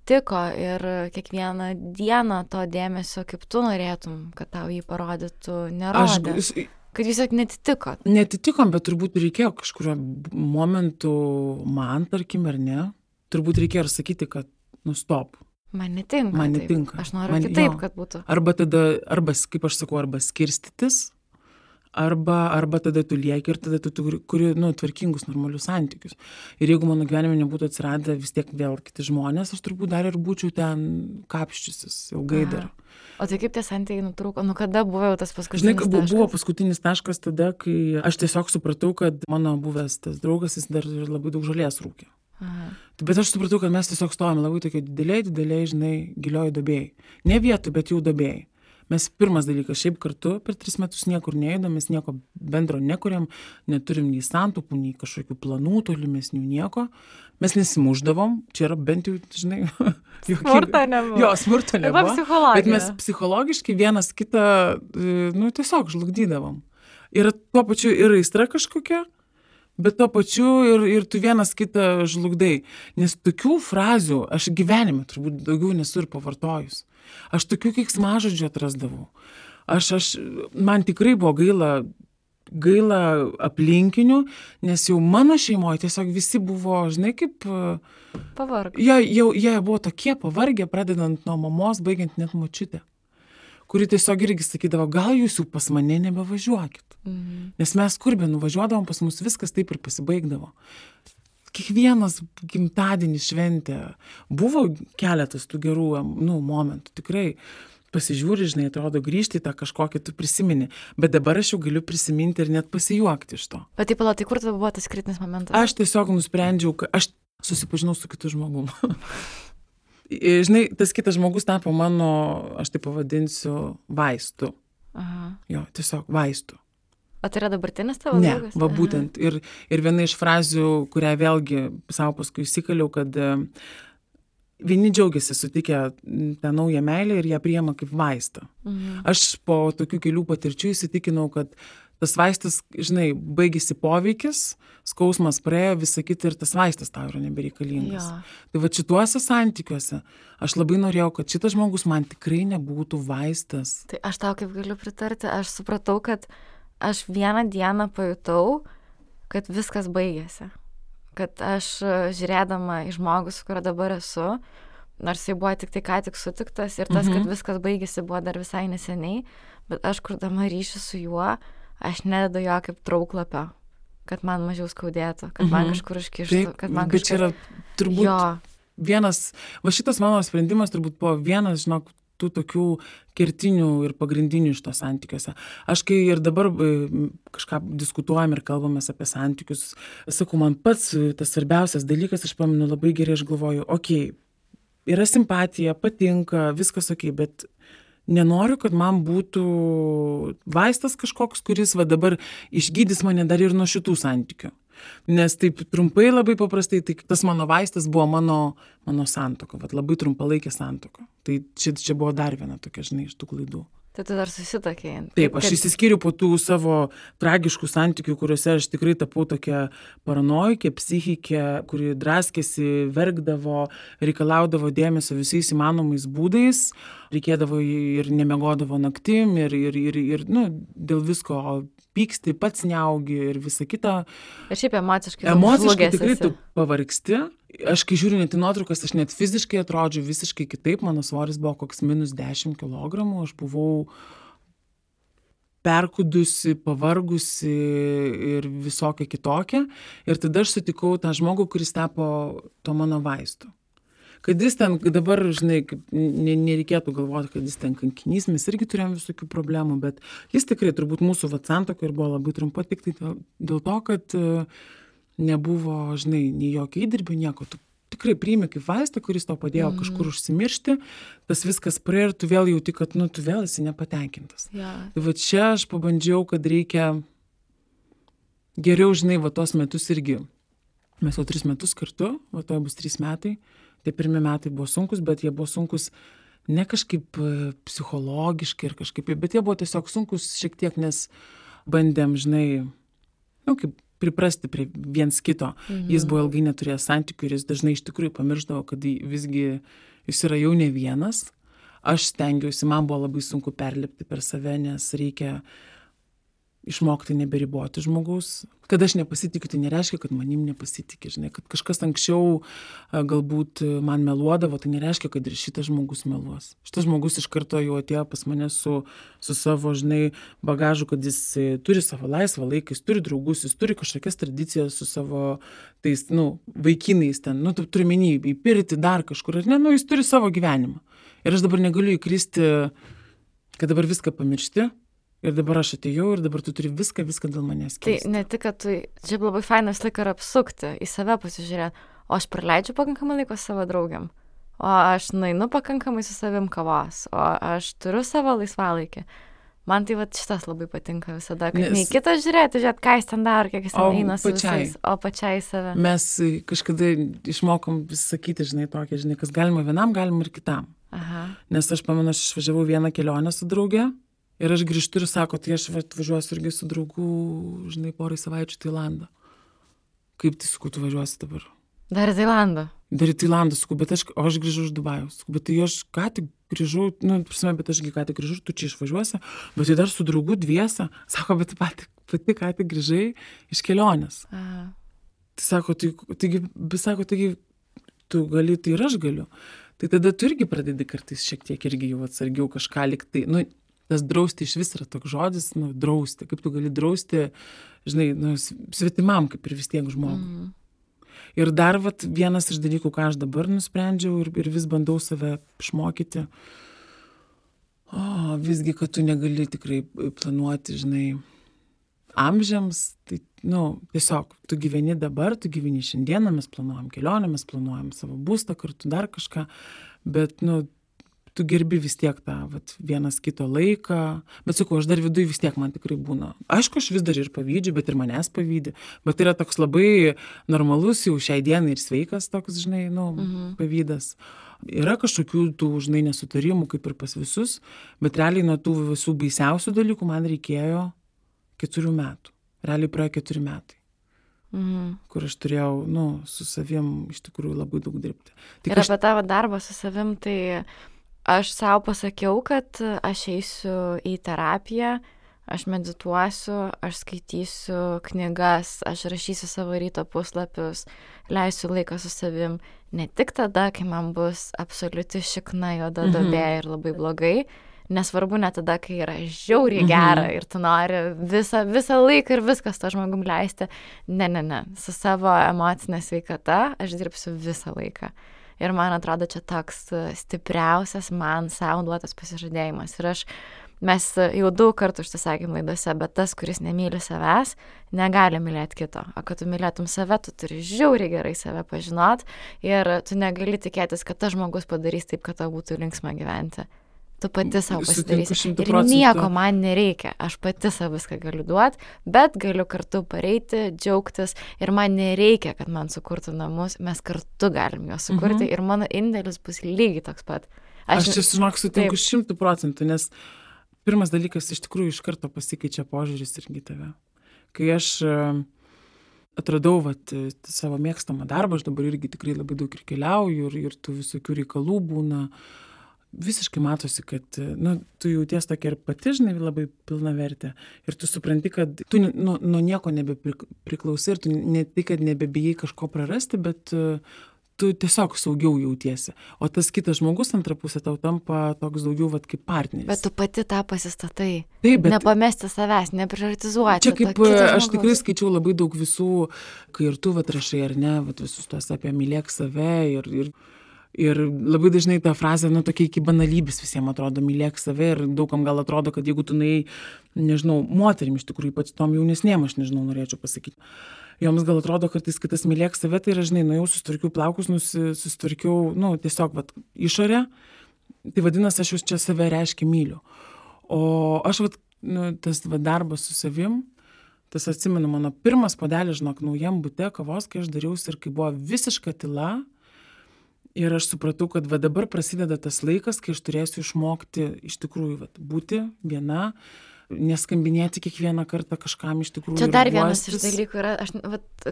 tiko ir kiekvieną dieną to dėmesio, kaip tu norėtum, kad tau jį parodytų, nerodė? Kad jūs tiesiog netitikot? Netitikom, bet turbūt reikėjo kažkurio momentu man, tarkim, ar ne, turbūt reikėjo ir sakyti, kad stop. Man netinka. Man taip. netinka. Aš noriu Man- kitaip, jo. kad būtų. Arba tada, kaip aš sakau, arba skirstytis, arba tada tu lieki ir tada tu kuri, tvarkingus, normalius santykius. Ir jeigu mano gyvenime nebūtų atsiradę vis tiek vėl kiti žmonės, aš turbūt dar ir būčiau ten kapščiusis ilgai dar. O tai kaip tie santykiai nutrūko? Nu kada buvo jau tas Žinai, paskutinis taškas? buvo paskutinis taškas tada, kai aš tiesiog supratau, kad mano buvęs tas draugas, jis dar ir labai daug žolės rūkė. Aha. Bet aš supratau, kad mes tiesiog stovame labai tokie dideliai, žinai, gilioj duobėjai. Ne vietoj, bet jau duobėjai. Mes pirmas dalykas, šiaip kartu per 3 metus niekur neįdom, mes nieko bendro nekuriam, neturim nei santaupų, nei kažkokių planų tolimesnių, nieko. Mes nesimuždavom, čia yra bent jau, žinai, Smurto nebuvo. Jo, smurto nebuvo. Arba psichologija. Bet mes psichologiškai vienas kitą, tiesiog žlugdydavom. Ir tuo pačiu ir aistra kažkokia, bet tuo pačiu ir tu vienas kitą žlugdai. Nes tokių frazių aš gyvenime turbūt daugiau nesu ir pavartojus. Aš tokių keiksmažodžių atrasdavau. Man tikrai buvo gaila aplinkinių, nes jau mano šeimoje tiesiog visi buvo, žinai, kaip... Pavarg. Jie buvo tokie pavargę, pradedant nuo mamos, baigiant net močiutę, kuri tiesiog irgi sakydavo, gal jūs jau pas mane nebevažiuokit. Nes mes kur be nuvažiuodavom, pas mus viskas taip ir pasibaigdavo. Kiekvienas gimtadienis šventė. Buvo keletas tų gerų momentų, tikrai. Pasižiūri, žinai, atrodo, grįžti į tą kažkokį, tu prisimeni. Bet dabar aš jau galiu prisiminti ir net pasijuokti iš to. Bet taip, tai kur tada buvo tas kritinis momentas? Aš tiesiog nusprendžiau, kad aš susipažinau su kitu žmogum. Žinai, tas kitas žmogus tapo mano, aš tai pavadinsiu, vaistu. Aha. Jo, tiesiog vaistu. O tai yra dabartinis tavo Ne, draugas? va būtent. Ir viena iš frazių, kurią vėlgi savo paskui įsikaliau, kad vieni džiaugiasi sutikę tą naują meilę ir ją priima kaip vaistą. Aš po tokių kelių patirčių įsitikinau, kad tas vaistas, žinai, baigėsi poveikis, skausmas praėjo, visa kita ir tas vaistas tau yra nebereikalingas. Jo. Tai va šituose santykiuose aš labai norėjau, kad šitas žmogus man tikrai nebūtų vaistas. Tai aš tau kaip galiu pritarti, aš supratau, kad aš vieną dieną pajutau, kad viskas baigėsi. Kad aš žiūrėdama į žmogų, su kuriuo dabar esu, nors jis buvo tik tai ką tik sutiktas ir tas, kad viskas baigėsi, buvo dar visai neseniai, bet aš kurdama ryšį su juo, aš nededu jo kaip trauklapio, kad man mažiau skaudėtų, kad man kažkur iškištų, kad man bet čia yra turbūt Jo. vienas, va šitas mano sprendimas turbūt buvo vienas, žinok, tų tokių kertinių ir pagrindinių iš to santykiuose. Aš kai ir dabar kažką diskutuojam ir kalbamės apie santykius, sakau, man pats tas svarbiausias dalykas, aš pamenu labai gerai, aš galvoju, okei, yra simpatija, patinka, viskas okei, bet nenoriu, kad man būtų vaistas kažkoks, kuris va dabar išgydys mane dar ir nuo šitų santykių. Nes taip trumpai, labai paprastai, tai tas mano vaistas buvo mano santuoka, vat labai trumpalaikė santuoka. Tai čia buvo dar viena tokia, žinai, iš tų klaidų. Tai tu dar susitokėjai. Taip, aš išsiskyriau po tų savo tragiškų santykių, kuriuose aš tikrai tapau tokia paranojikė, psichikė, kuri draskėsi, verkdavo, reikalaudavo dėmesio visais įmanomais būdais, reikėdavo ir nemiegodavo naktim, ir dėl visko pyksti, pats neaugi ir visa kita. Ir šiaip emociškai Tikrai tu pavargsti. Aš kai žiūriu net į nuotraukas, aš net fiziškai atrodžiau visiškai kitaip. Mano svoris buvo koks -10 kilogramų. Aš buvau perkudusi, pavargusi ir visokia kitokia. Ir tada aš sutikau tą žmogų, kuris tapo to mano vaistu. Kad jis ten dabar, žinai, nereikėtų galvoti, kad jis ten kankinys, mes irgi turėjom visokių problemų, bet jis tikrai turbūt mūsų santuoka ir buvo labai trumpa, tik tai dėl to, kad nebuvo, žinai, nei jokio įdirbio, nieko. Tu tikrai priimi kaip vaistą, kuris tau padėjo kažkur užsimiršti, tas viskas praėjo ir tu vėl jauti, kad, tu vėl esi nepatenkintas. Ja. Tai va čia aš pabandžiau, kad reikia geriau, žinai, va tos metus irgi. Mes jau 3 metus kartu, va to bus 3 metai. Tai pirmi metai buvo sunkus, bet jie buvo sunkus ne kažkaip psichologiškai ir kažkaip, bet jie buvo tiesiog sunkus šiek tiek, nes bandėm, žinai, kaip priprasti prie viens kito. Jis buvo ilgai neturėjęs santykių ir jis dažnai iš tikrųjų pamirždavo, kad visgi jis yra jau ne vienas. Aš stengiausi, man buvo labai sunku perlipti per save, nes reikia išmokti neberiboti žmogaus. Kad aš nepasitikiu, tai nereiškia, kad manim nepasitikė, žinai, kad kažkas anksčiau galbūt man meluodavo, tai nereiškia, kad ir šitas žmogus meluos. Šitas žmogus iš karto jau atėjo pas mane su savo, žinai, bagažu, kad jis turi savo laisvą laiką, jis turi draugus, jis turi kažkokias tradicijas su savo tais, vaikinais ten, tu turi menį į pirtį dar kažkur, ar ne, jis turi savo gyvenimą. Ir aš dabar negaliu įkristi, kad dabar viską pamiršti. Ir dabar aš atėjau ir dabar tu turi viską dėl manęs keisti. Tai ne tik, kad tu, šiaip labai fainas laiką yra apsukti, į save pasižiūrėti, o aš praleidžiu pakankamai laiko savo draugiam, o aš nueinu pakankamai su savim kavos, o aš turiu savo laisvalaikį. Man tai šitas labai patinka visada, kad nei kitas žiūrėti, ką jis ten daro, kiek jis ten eina su visais, o pačiai save. Mes kažkada išmokom vis sakyti, žinai, tokia, žinai, kas galima vienam, galima ir kitam. Aha. Nes aš pamenu, aš išvažiavau vieną kelionę su drauge. Ir aš grįžtu ir sako, tai aš važiuosiu irgi su draugu, žinai, porai savaičių Tailandą. Kaip tai, sakau, tu važiuosi dabar? Dar į Tailandą. Dar į Tailandą, sakau, bet aš grįžau iš Dubajaus. Sakau, bet tai aš ką tik grįžau, bet ašgi ką tik grįžau, tu čia išvažiuosi, bet tai dar su draugu dviese. Sako, bet pati ką tik grįžai iš kelionės. Aha. Tai sako, taigi tu gali, tai ir aš galiu. Tai tada tu irgi pradedi kartais šiek tiek irgi jau atsargiau kažką liktai, tas drausti iš vis yra toks žodis, drausti. Kaip tu gali drausti, žinai, svetimam, kaip ir vis tiek žmogui. Ir dar vienas iš dalykų, ką aš dabar nusprendžiau ir vis bandau save išmokyti, visgi, kad tu negali tikrai planuoti, žinai, amžiams, tai, tiesiog, tu gyveni dabar, tu gyveni šiandieną, mes planuojam kelionę, mes planuojam savo būstą kartu, dar kažką, bet, tu gerbi vis tiek tą vienas kito laiką, bet sakau, aš dar viduj vis tiek man tikrai būna. Aišku, aš vis dar ir pavydžiu, bet ir manęs pavydi, bet tai yra toks labai normalus jau šiai dienai ir sveikas toks, žinai, pavydas. Yra kažkokių tų, žinai, nesutarimų, kaip ir pas visus, bet realiai nuo tų visų baisiausių dalykų man reikėjo 4 metų. Realiai praėjo 4 metai. Kur aš turėjau, su savim iš tikrųjų labai daug dirbti. Ir apie tavo darbą su savim, tai aš savo pasakiau, kad aš eisiu į terapiją, aš medituosiu, aš skaitysiu knygas, aš rašysiu savo ryto puslapius, leisiu laiką su savim. Ne tik tada, kai man bus absoliuti šikna juoda duobė ir labai blogai, nesvarbu net tada, kai yra žiauriai gera ir tu nori visą laiką ir viskas to žmogum leisti. Ne. Su savo emocinė sveikata aš dirbsiu visą laiką. Ir man atrodo, čia toks stipriausias man savo duotas pasižadėjimas. Ir mes jau daug kartų užsisakėm laidose, bet tas, kuris nemyli savęs, negali mylėti kito. O kad tu mylėtum save, tu turi žiauriai gerai save pažinot ir tu negali tikėtis, kad tas žmogus padarys taip, kad tau būtų linksma gyventi. Tu pati savo pasidarysi. Ir nieko man nereikia. Aš pati savo viską galiu duoti, bet galiu kartu pareiti, džiaugtis. Ir man nereikia, kad man sukurtų namus. Mes kartu galim juos sukurti ir mano indėlis bus lygiai toks pat. Aš čia, žinok, sutinku 100%, nes pirmas dalykas iš tikrųjų iš karto pasikeičia požiūris irgi tave. Kai aš atradau savo mėgstamą darbą, aš dabar irgi tikrai labai daug ir keliauju ir tų visokių reikalų būna. Visiškai matosi, kad tu jauties tokia ir pati, žinai, labai pilna vertė. Ir tu supranti, kad tu nuo nieko nebepriklausai ir tu ne tai, kad nebebijai kažko prarasti, bet tu tiesiog saugiau jautiesi. O tas kitas žmogus antra pusė tau tampa toks daugiau kaip partneris. Bet tu pati tą pasistatai. Taip, bet nepamesti savęs, neprioritizuoti. Čia kaip aš tikrai skaičiau labai daug visų, kai ir tu rašai ar ne, visus tuos apie mylėk save ir labai dažnai ta frazė, tokia iki banalybės visiems atrodo, mylėk save ir daugam gal atrodo, kad jeigu tu nežinau, moterim iš tikrųjų, ypač tom jaunesnėm, aš nežinau, norėčiau pasakyti. Joms gal atrodo, kad tas mylėk save, tai yra, žinai, nuėjau, susitvarkiau plaukus, susitvarkiau, tiesiog išorę, tai vadinasi, aš jau čia save reiškia myliu. O aš, tas darbas su savim, tas atsimenu, mano pirmas puodelis, žinok, naujam bute kavos, kai aš dariausi ir kai buvo visiška tyla. Ir aš supratau, kad dabar prasideda tas laikas, kai aš turėsiu išmokti iš tikrųjų būti viena, neskambinėti kiekvieną kartą kažkam iš tikrųjų. Čia dar vienas iš dalykų yra,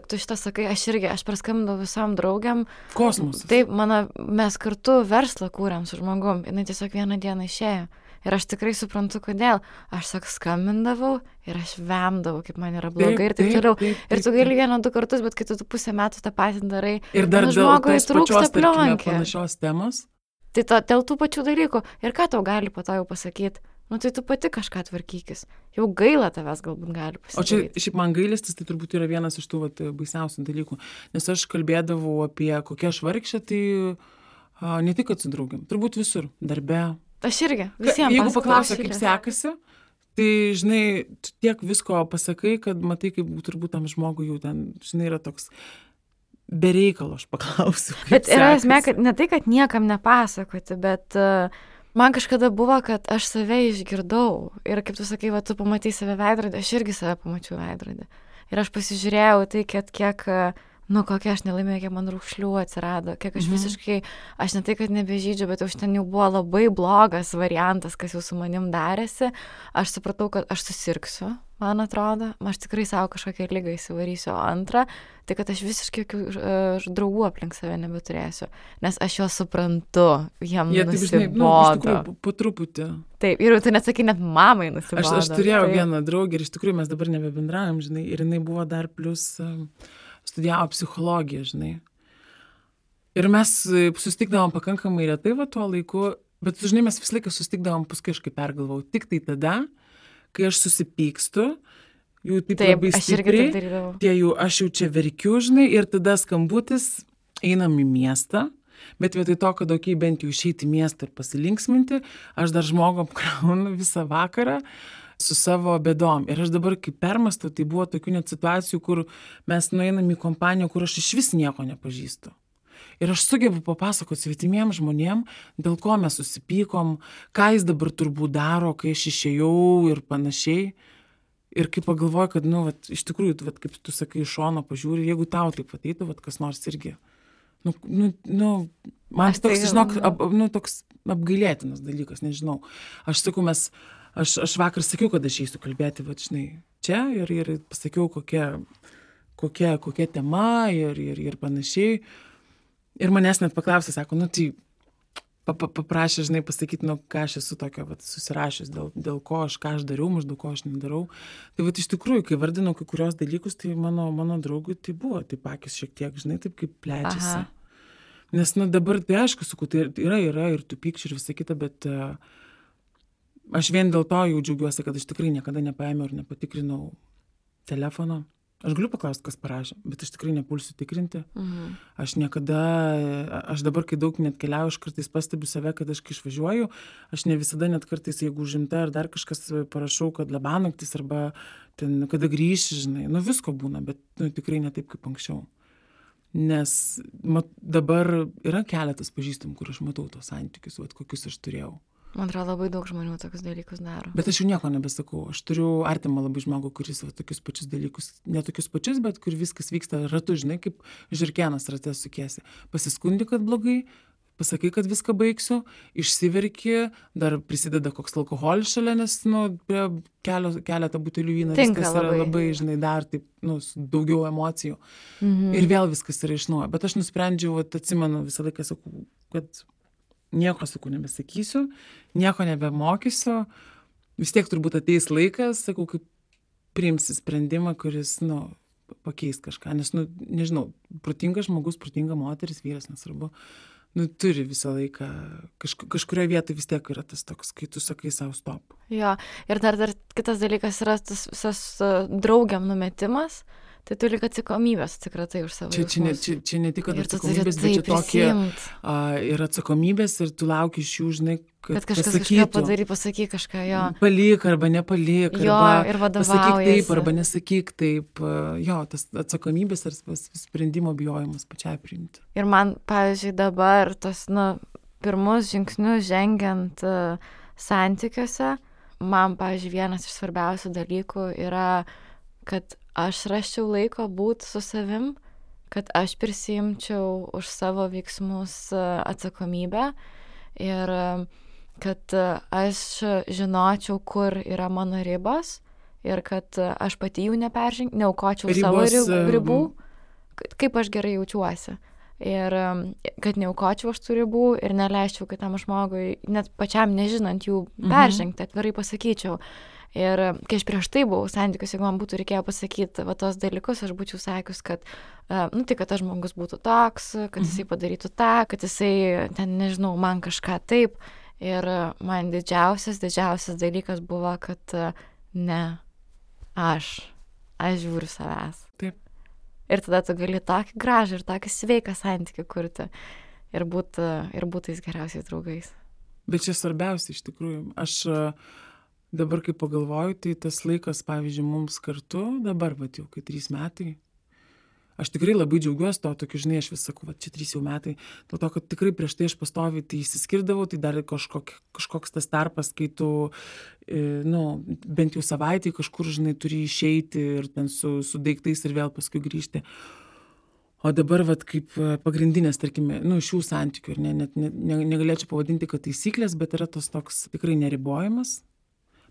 tu šitą sakai, aš praskambinau visom draugiam. Kosmosas. Taip, mes kartu verslą kūrėm su žmogum, jinai tiesiog vieną dieną išėjo. Ir aš tikrai suprantu, kodėl. Aš skambindavau ir aš vemdavau, kaip man yra blogai ir taip toliau. Ir tu gali 1-2 kartus, bet kai tu pusę metų tą patį darai, ir dar žmogui trūksta plionkė. Panašios temos. Tai dėl tų pačių dalykų. Ir ką tau gali po to jau pasakyti? Nu tai tu pati kažką tvarkykis. Jau gaila tavęs galbūt gali pasidaryti. O čia šiaip man gailestis, tai turbūt yra vienas iš tų baisiausių dalykų. Nes aš kalbėdavau apie kokią aš vargšę, tai ne tik kad su draugiam, turbūt visur, darbe. Aš irgi, visiems. Jeigu paklausia, kaip sekasi, tai, žinai, tiek visko pasakai, kad matai, kaip turbūt tam žmogui jau ten, žinai, yra toks bereikalo, aš paklausiu. Bet yra esmė, kad ne tai, kad niekam nepasakoti, bet man kažkada buvo, kad aš save išgirdau. Ir kaip tu sakai, tu pamatai save veidrodį, aš irgi save pamačiau veidrodį. Ir aš pasižiūrėjau tai, kiek kokia aš nelaimėjau, kiek man raukšlių atsirado, kiek aš visiškai, aš ne tai, kad nebežydžiu, bet už ten jau buvo labai blogas variantas, kas jau su manim darėsi. Aš supratau, kad aš susirgsiu, man atrodo, aš tikrai savo kažkokią ligą įsivarysiu. O antra, tai kad aš visiškai draugų aplink save nebeturėsiu, nes aš juos suprantu, jiem nusibodo. Iš tikrųjų, po truputį. Taip, ir tu nesakai, net mamai nusibodo. Aš turėjau vieną draugę ir iš tikrųjų mes dabar nebebendraujam, žinai, ir jinai buvo dar plus studijavo psichologiją, žinai. Ir mes susitikdavom pakankamai retai tuo laiku, bet, žinai, mes visą laiką susitikdavom, paskui aš kaip pergalvau, tik tai tada, kai aš susipykstu, jau taip labai stipriai, aš jau čia verkiu, žinai, ir tada skambutis, einam į miestą, bet vietoj to, kad bent jau išeiti į miestą ir pasilinksminti, aš dar žmogų apkraunu visą vakarą su savo bėdom. Ir aš dabar, kai permastau, tai buvo tokių net situacijų, kur mes nueinam į kompaniją, kur aš iš vis nieko nepažįstu. Ir aš sugebu papasakoti svetimiem žmonėm, dėl ko mes susipykom, ką jis dabar turbūt daro, kai aš išėjau ir panašiai. Ir kai pagalvoju, kad, iš tikrųjų, kaip tu sakai, iš šono pažiūri, jeigu tau taip ateitų, kas nors irgi. Man toks, žinok, toks apgailėtinas dalykas, nežinau. Aš sakau, aš vakar sakiau, kad aš eisiu kalbėti, žinai, čia ir pasakiau, kokia tema ir panašiai. Ir manęs net paklausė, sako, tai paprašė, žinai, pasakyti, ką aš esu tokio susirašęs, dėl ko ką aš dariau, maždaug ko aš nedarau. Tai iš tikrųjų, kai vardinau kai kurios dalykus, tai mano draugui tai buvo, taip akis šiek tiek, žinai, taip kaip plečiasi. Nes, dabar tai aišku, sakau, tai yra ir tų pykčių ir visą kitą, bet aš vien dėl to jau džiaugiuosi, kad aš tikrai niekada nepaėmiau ir nepatikrinau telefono. Aš galiu paklausti, kas parašė, bet aš tikrai nepulsiu tikrinti. Aš dabar, kai daug net keliauju, aš kartais pastebiu save, kad aš kai išvažiuoju, aš ne visada net kartais, jeigu užimta ar dar kažkas parašau, kad labanaktis arba ten, kada grįši, žinai, visko būna, bet tikrai ne taip kaip anksčiau. Nes dabar yra keletas pažįstamų, kur aš matau tos santykius, kokius aš turėjau. Man atrodo, labai daug žmonių tokius dalykus daro. Bet aš jau nieko nebesakau. Aš turiu artimą labai žmogų, kuris tokius pačius dalykus, ne tokius pačius, bet kur viskas vyksta ratu, žinai, kaip žiurkenas rate sukiesi. Pasiskundi, kad blogai, pasakai, kad viską baigsiu, išsiverki, dar prisideda koks alkoholis šalia, nes prie keletą butelių vyno viskas yra labai, žinai, dar taip, daugiau emocijų. Ir vėl viskas yra iš naujo. Bet aš nusprendžiau, atsimenu, visą laiką sakau, kad nieko, sakau, nebesakysiu, nieko nebemokysiu, vis tiek turbūt ateis laikas, sakau, kaip priimsi sprendimą, kuris, pakeis kažką, nes, nežinau, protingas žmogus, protinga moteris, vyras, nesvarbu, turi visą laiką, kažkurioje vietoje vis tiek yra tas toks, kai tu sakai savo stop. Jo, ir dar kitas dalykas yra tas visas draugiam numetimas, tai tu lyg atsakomybės atsikratai už savo jausmus. Čia ne tik atsakomybės, bet čia tokie ir atsakomybės ir tu lauki iš jų, žinai, kad kažkas kažką pasakyk kažką, jo. Palik arba nepalik, jo, arba pasakyk taip arba nesakyk taip. Jo, tas atsakomybės ir sprendimo bijojimas pačiai priimti. Ir man, pavyzdžiui, dabar tos, pirmus žingsnius žengiant santykiuose, man, pavyzdžiui, vienas iš svarbiausių dalykų yra, kad aš rasčiau laiko būti su savim, kad aš prisiimčiau už savo veiksmus atsakomybę ir kad aš žinočiau, kur yra mano ribos ir kad aš pati jų neaukočiau savo ribų, kaip aš gerai jaučiuosi. ir kad neaukočiau aš tų ribų ir neleisčiau kitam žmogui, net pačiam nežinant jų peržengti, atvirai pasakyčiau. Ir kai aš prieš tai buvau santykius, jeigu man būtų reikėję pasakyti va tos dalykus, aš būčiau sakius, kad, tai kad tas žmogus būtų toks, kad jisai padarytų tą, kad jisai, ten nežinau, man kažką taip. Ir man didžiausias dalykas buvo, kad ne, aš žiūriu savęs. Taip. Ir tada tu gali tokį gražų ir tokį sveiką santykį kurti ir būti tais geriausiais draugais. Bet čia svarbiausia iš tikrųjų. Aš dabar, kai pagalvoju, tai tas laikas, pavyzdžiui, mums kartu, dabar, jau kai 3 metai, aš tikrai labai džiaugiuosi to, tokiu, žinai, aš vis sakau, čia 3 jau metai, dėl to, kad tikrai prieš tai aš pastoviai tai išsiskirdavau, tai dar kažkoks tas tarpas, kai tu, bent jau savaitį kažkur, žinai, turi išeiti ir ten su daiktais ir vėl paskui grįžti. O dabar, kaip pagrindinės, tarkime, šių santykių, ir net negalėčiau pavadinti, kad taisyklės, bet yra tas toks tikrai neribojimas.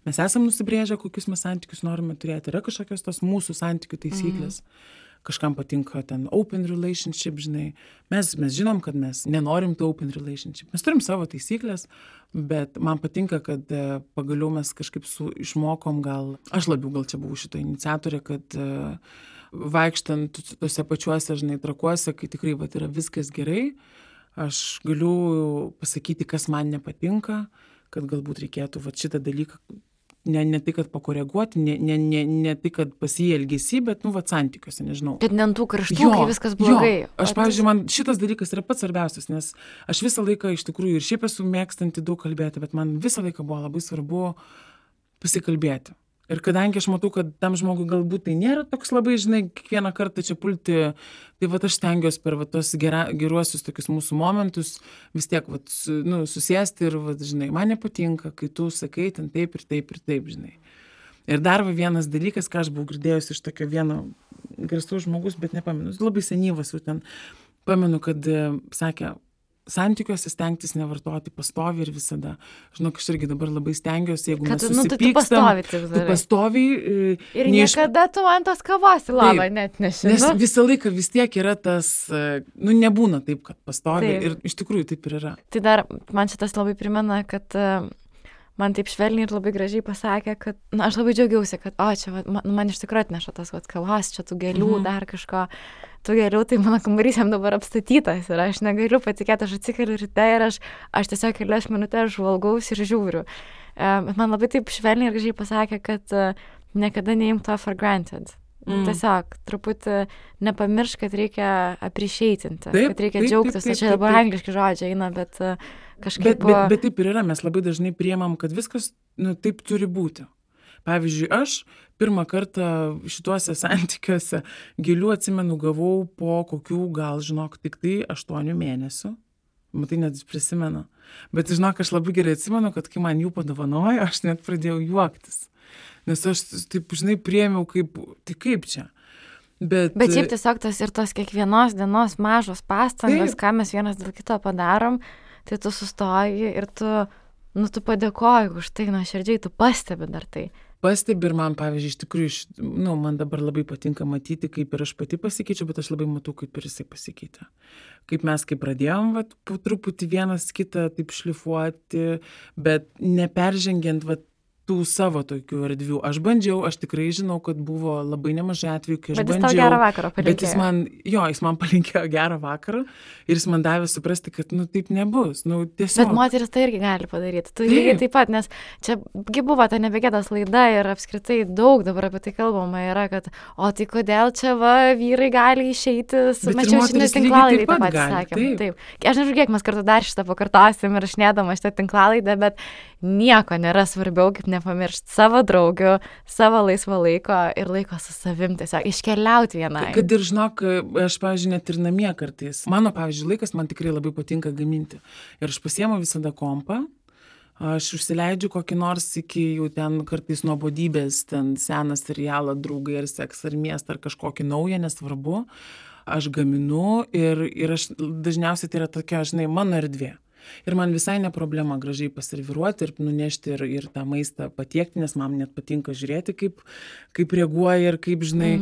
Mes esam nusibrėžę, kokius mes santykius norime turėti. Yra kažkokios tos mūsų santykių taisyklės. Kažkam patinka ten open relationship, žinai. Mes žinom, kad mes nenorim to open relationship. Mes turim savo taisyklės, bet man patinka, kad pagaliau mes kažkaip išmokom aš labiau čia buvau šito iniciatorė, kad vaikštant tose pačiuose, žinai, trakuose, kai tikrai yra viskas gerai, aš galiu pasakyti, kas man nepatinka, kad galbūt reikėtų šitą dalyką ne tai, kad pakoreguoti, ne tai, kad pasielgėsi, bet, santykiuose, nežinau. Bet ne ant tų karštų, kai viskas blogai. Aš, pavyzdžiui, man šitas dalykas yra pats svarbiausias, nes aš visą laiką iš tikrųjų ir šiaip esu mėgstanti daug kalbėti, bet man visą laiką buvo labai svarbu pasikalbėti. Ir kadangi aš matau, kad tam žmogui galbūt tai nėra toks labai, žinai, kiekvieną kartą čia pulti, tai aš stengiuosi per tos geruosius tokius mūsų momentus vis tiek susėsti ir, žinai, man nepatinka, kai tu sakai ten taip ir taip ir taip, žinai. Ir dar vienas dalykas, ką aš buvau girdėjusi iš tokio vieno garsaus žmogus, bet nepamenu, labai senyvas jau ten, pamenu, kad sakė, santykiuose stengtis nevartoti pastoviai ir visada. Žinok, aš irgi dabar labai stengiuosi, jeigu mes susipykstam, tu pastoviai. Ir niekada tu ant tos kavos į lavą net neši. Nes visą laiką vis tiek yra tas, nebūna taip, kad pastoviai. Taip. Ir iš tikrųjų taip ir yra. Tai dar man šitas labai primena, kad man taip švelniai ir labai gražiai pasakė, kad, aš labai džiaugiausi, kad, čia man iš tikrųjų atneša tas kavos, čia tų gėlių, dar kažko. Tų gėlių, tai mano kambarys jam dabar apstatytas ir aš negaliu patikėti, aš atsikeliu ryte ir aš tiesiog kelias minutės žvalgaus ir žiūriu. Bet man labai taip švelniai ir gražiai pasakė, kad niekada neimk to for granted. Tiesiog truputį nepamiršk, kad reikia appreciatinti, kad reikia džiaugtis. Čia dabar angliški žodžiai eina, bet kažkaip... Bet taip ir yra, mes labai dažnai priemam, kad viskas taip turi būti. Pavyzdžiui, aš pirmą kartą šituose santykiuose gėlių, atsimenu, gavau po kokių, gal, žinok, tik tai 8 mėnesių. Matai, net prisimenu. Bet, žinok, aš labai gerai atsimenu, kad kai man jų padovanojo, aš net pradėjau juoktis. Nes aš taip, žinai, priėmiau kaip čia. Bet šiaip tiesiog tos kiekvienos dienos mažos pastangos, ką mes vienas dėl kito padarom, tai tu sustoji ir tu padėkoji už tai, nuoširdžiai, tu pastebi dar tai. Pastebi ir man, pavyzdžiui, iš tikrųjų, man dabar labai patinka matyti, kaip ir aš pati pasikeičiu, bet aš labai matau, kaip ir jisai pasikeitė. Kaip mes pradėjom, po truputį vienas kitą taip šlifuoti, bet neperžengiant, tų savo tokių erdvių. Aš bandžiau, aš tikrai žinau, kad buvo labai nemažai atvejų, kai aš bandžiau. Bet jis tau gerą vakarą palinkėjo. Bet jis man palinkėjo gerą vakarą ir jis man davė suprasti, kad taip nebus. Tiesiog. Bet moteris tai irgi gali padaryti. Tu lygiai taip pat, nes čia buvo ta nebegėdas laida ir apskritai daug dabar apie tai kalbama yra, kad tai kodėl čia vyrai gali išeiti, mačiau šitą tinklalaidę taip pat sakėm. Taip. Aš nežinau, kiek mes kartu dar šitą pakartosim ir šnėdama šitą tinklalaidę, bet nieko nėra svarbiau, kaip nepamiršti savo draugių, savo laisvo laiko ir laiko su savim, tiesiog iškeliauti vienai. Kad ir žinok, aš, pavyzdžiui, net ir namie kartais. Mano, pavyzdžiui, laikas man tikrai labai patinka gaminti. Ir aš pasiemu visada kompą, aš užsileidžiu kokį nors iki jau ten kartais nuobodybės, ten seną serialą, Draugai ar Seksą ar Miestą ar kažkokį naują, nesvarbu. Aš gaminu ir aš dažniausiai tai yra tokia, žinai, mano erdvė. Ir man visai ne problema gražiai paserviruoti ir nunešti ir tą maistą patiekti, nes man net patinka žiūrėti, kaip reaguoja ir kaip, žinai,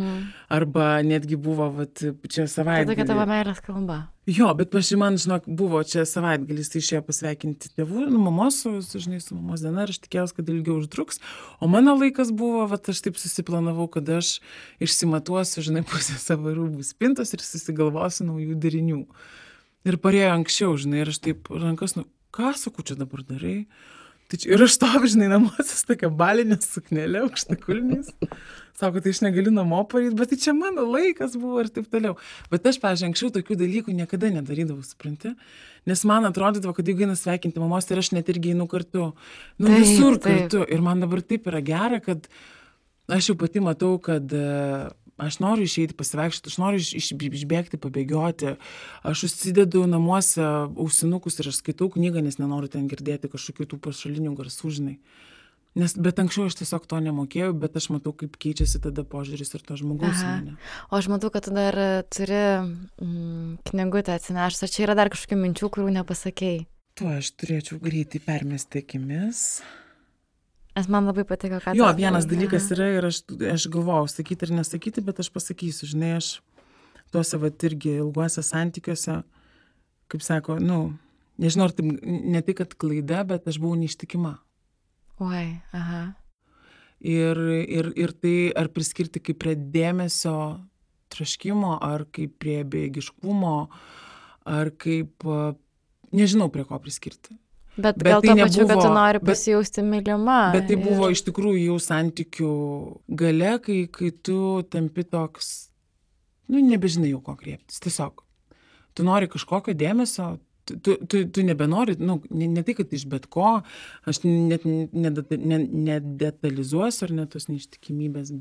Arba netgi buvo, vat, čia Tai savaitgalį. tokia tavo meilės kalba. Jo, bet man, žinok, buvo čia savaitgalis, tai išėjo pasveikinti tėvų, mamos, žinai, su mamos diena, ir aš tikėjausi, kad ilgiau užtruks. O mano laikas buvo, vat, aš taip susiplanavau, kad aš išsimatuosiu, žinai, pusę savo rūbų spintos ir susigalvosiu naujų derinių. Ir parėjo anksčiau, žinai, ir aš taip rankas, ką sakau, čia dabar darai? Tai čia, ir aš stoviu, žinai, namuose su tokia balinė suknelė, aukštakulniais. Sako, tai aš negaliu namo pareit, bet tai čia mano laikas buvo ir taip toliau. Bet aš, pavyzdžiui, anksčiau tokių dalykų niekada nedarydavau, supranti? Nes man atrodydavo, kad jeigu eina sveikinti mamos, tai aš net irgi einu kartu. Nu, Taip, visur taip. kartu. Ir man dabar taip yra gera, kad aš jau pati matau, kad aš noriu išeiti pasivaikščioti, aš noriu išbėgti, pabėgioti. Aš užsidedu namuose ausinukus ir aš skaitau knygą, nes nenoriu ten girdėti kažkokių tų pašalinių garsų, žinai. Bet anksčiau aš tiesiog to nemokėjau, bet aš matau, kaip keičiasi tada požiūris ir to žmogaus į mane. O aš matau, kad tu dar turi knygutę atsinešęs. Ar čia yra dar kažkokių minčių, kurių nepasakėjai? Tuo aš turėčiau greitai permesti akimis. Nes man labai patiko, kad... Jo, vienas dalykas yra ir aš galvojau sakyti ar nesakyti, bet aš pasakysiu, žinai, aš tuose vat irgi ilguose santykiuose, kaip sako, nežinau, ar tai ne tai, kad klaida, bet aš buvau neištikima. Oi, aha. Ir tai ar priskirti kaip prie dėmesio troškimo, ar kaip prie bejėgiškumo, ar kaip, nežinau, prie ko priskirti. Bet gal tai to pačiu, kad tu nebuvo- nori bet- pasijausti mylima. Bet tai buvo iš tikrųjų jau santykių gale, kai tu tampi toks, nebežinai jau ko kreiptis. Tiesiog, tu nori kažkokio dėmesio, tu nebenori, ne tai, kad iš bet ko, aš net nedetalizuosiu ar net tos neištikimybės,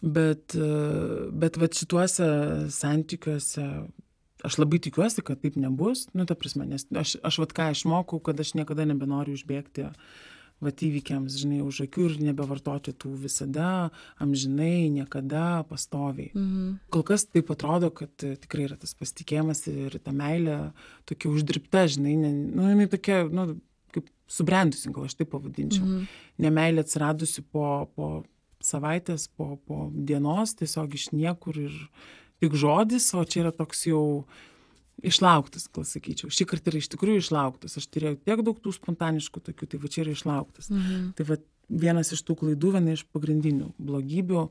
bet vat šituose santykiuose aš labai tikiuosi, kad taip nebus, ta prasme, nes aš vat ką išmokau, kad aš niekada nebenoriu užbėgti vat įvykiams, žinai, už akių ir nebevartoti tų visada, amžinai, niekada, pastoviai. Kol kas taip atrodo, kad tikrai yra tas pasitikėjimas ir ta meilė tokia uždirbta, žinai, jinai tokia, kaip subrendusi, gal aš taip pavadinčiau. Nemeilė atsiradusi po savaitės, po dienos, tiesiog iš niekur ir tik žodis, o čia yra toks jau išlauktas, gal sakyčiau. Šį kartą yra iš tikrųjų išlauktas. Aš turėjau tiek daug tų spontaniškų tokių, tai va čia yra išlauktas. Tai va vienas iš tų klaidų, viena iš pagrindinių blogybių,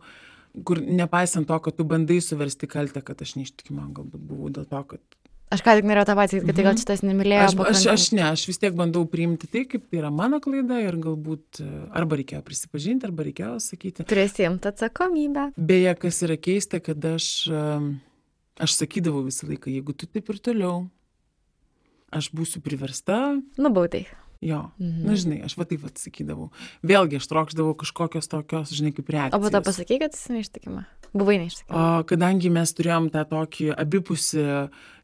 kur nepaisant to, kad tu bandai suversti kaltę, kad aš neištikima, galbūt buvau dėl to, kad... Aš ką tik norėjau tą patį, kad tai gal šitas nemylėjo pakankamai. Aš vis tiek bandau priimti tai, kaip tai yra mano klaida ir galbūt arba reikėjo prisipažinti, arba reikėjo sakyti. Prisiimti atsakomybę. Beje, kas yra keista, kad aš sakydavau visą laiką, jeigu tu taip ir toliau, aš būsiu priversta. Nubaudai. Jo, žinai, aš va taip atsakydavau. Vėlgi, aš trokšdavau kažkokios tokios, žinai, kaip reakcijos. O po to pasakai, kad esi neištikima. Buvai neištikima. Kadangi mes turėjom tą tokį abipusį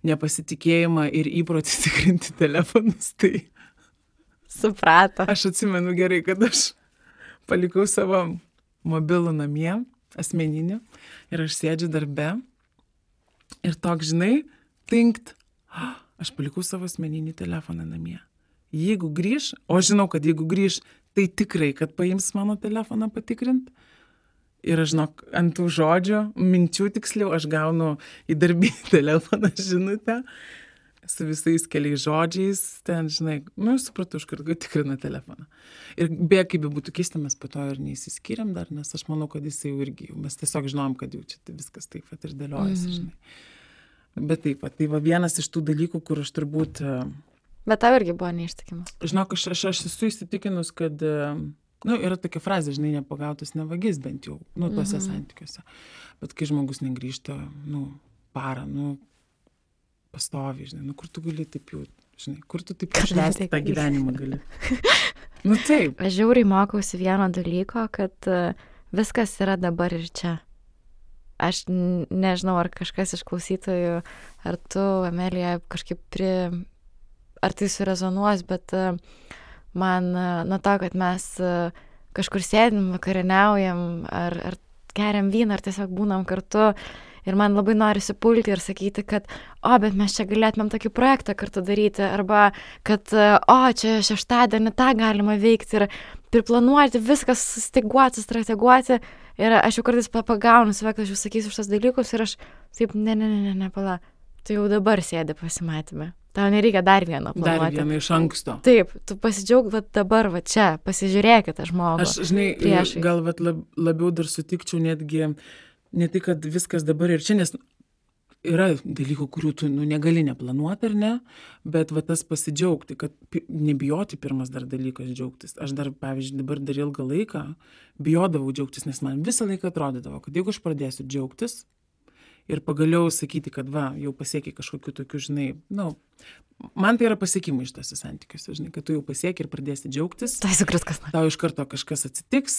nepasitikėjimą ir įprotį tikrinti telefonus, tai... Suprato. Aš atsimenu gerai, kad aš palikau savo mobilų namie, asmeninį, ir aš sėdžiu darbe. Ir toks, žinai, tinkt, aš palikau savo asmeninį telefoną namie. Jeigu grįž, o žinau, kad jeigu grįž, tai tikrai, kad paims mano telefoną patikrint. Ir aš žinok, ant tų žodžių, minčių tiksliau, aš gaunu į darbinį telefoną žinutę su visais keliais žodžiais, ten, žinai, supratau, iš karto tikrina telefoną. Ir be kaip būtų keista, mes po to ir neįsiskyrėm dar, nes aš manau, kad jisai jau irgi, mes tiesiog žinom, kad jau čia viskas taip pat ir dėliojasi, žinai. Bet taip pat, tai va vienas iš tų dalykų, kur aš turbūt... Bet tau irgi buvo neištikima. Žinok, aš esu įsitikinus, kad, yra tokia frazė, žinai, nepagautas nevagis bent jau, tuose santykiuose. Bet kai žmogus negrįžta, parą, pastoviai, žinai, kur tu gali taip jau, žinai, kur tu taip išleisti tą gyvenimą gali. Taip. Aš žiauriai mokausi vieno dalyko, kad viskas yra dabar ir čia. Aš nežinau, ar kažkas iš klausytojų, ar tu, Amelija, kažkaip ar tai surezonuos, bet man nuo to, kad mes kažkur sėdim, vakarieniaujam, ar geriam vyną, ar tiesiog būnam kartu, ir man labai norisi pulti ir sakyti, kad, bet mes čia galėtumėm tokį projektą kartu daryti, arba kad, čia šeštadienį tą galima veikti, ir priplanuoti, viskas sustyguoti, strateguoti. Ir aš jau kartais pagaunu save, kad aš jau sakysiu šitas dalykus ir aš taip, ne, pala, tu jau dabar sėdi pasimatymę. Tau nereikia dar vieno planuoti. Dar vieną iš anksto. Taip, tu pasidžiaug dabar, čia, pasižiūrėkite žmogų. Aš, žinai, priešais. Gal labiau dar sutikčiau netgi, ne tai, kad viskas dabar ir čia, nes yra dalykų, kurių tu negali neplanuoti ar ne, bet tas pasidžiaugti, kad nebijoti pirmas dar dalykas džiaugtis. Aš dar, pavyzdžiui, dabar dar ilgą laiką bijodavau džiaugtis, nes man visą laiką atrodydavo, kad jeigu aš pradėsiu džiaugtis, ir pagaliau sakyti, kad jau pasiekiai kažkokiu tokiu, žinai, man tai yra pasiekimai iš tose santykiuose, žinai, kad tu jau pasiekiai ir pradėsi džiaugtis. Tai sukris kas nors. Tau iš karto kažkas atsitiks,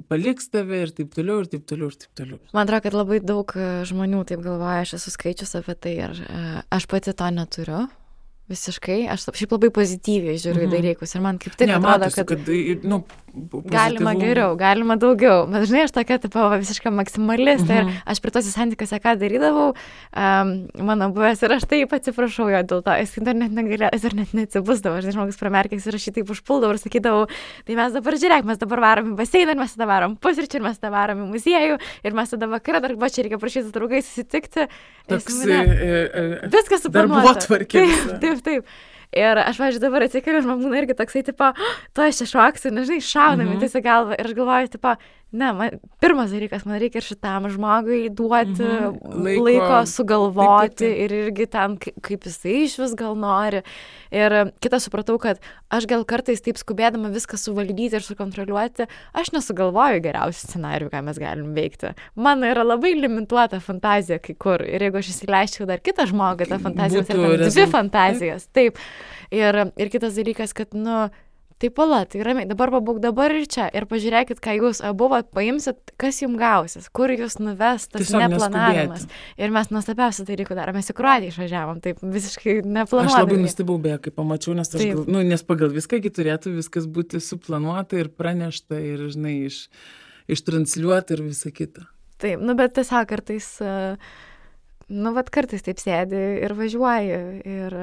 paliks tave ir taip toliau, ir taip toliau, ir taip toliau. Man atrodo, kad labai daug žmonių taip galvoja, aš esu skaičius apie tai ir aš pati to neturiu. Visiškai, aš šiaip labai pozityviai žiūriu į dalykus ir man kaip tik atrodo, kad galima geriau, galima daugiau, bet žinai, aš tokia visiška maksimalistė ir aš prie tose santykiuose ką darydavau, mano buvęs ir aš taip atsiprašau jo dėl to, jis dar net negalėjo, jis dar net neatsibusdavo, aš žmogus pramerkęs ir aš jį taip užpuldavau ir sakydavau, tai mes dabar žiūrėk, mes dabar varom į baseiną ir mes tada varom pusryčių ir mes tada varom į muziejų ir mes tada vakarą dar čia reikia prašyti draugais susitikti. Viskas suplanuota. Taip. Ir aš, pavyzdžiui, dabar atsikeliu ir man būna irgi toksai, tipo, to aš čia šoksiu, nežinai, šaunami tiesiog galvą. Ir aš galvoju, tipo, pirmas dalykas, man reikia ir šitam žmogui duoti laiko sugalvoti taip. Ir irgi ten, kaip jisai iš vis gal nori. Ir kitą supratau, kad aš gal kartais taip skubėdama viską suvaldyti ir sukontroliuoti, aš nesugalvoju geriausių scenarijų, ką mes galim veikti. Mano yra labai limituota fantazija kai kur. Ir jeigu aš įsileisčiau dar kitą žmogų, ta fantazija yra dvi fantazijos. Taip. Ir kitas dalykas, kad, taip pala, tai ramiai, dabar pabūk dabar ir čia. Ir pažiūrėkit, ką jūs abu paimsit, kas jums gausis, kur jūs nuves tas neplanavimas. Ir mes nuostabiausią dalykų darome. Mes į Kroatiją išvažiavom, taip visiškai neplanuodami. Aš labai nustebau beje, kai pamačiau, nes, nes pagal viską turėtų viskas būti suplanuota ir pranešta ir, žinai, ištransliuota ir visa kita. Taip, bet tiesiog kartais, kartais taip sėdi ir važiuoji ir...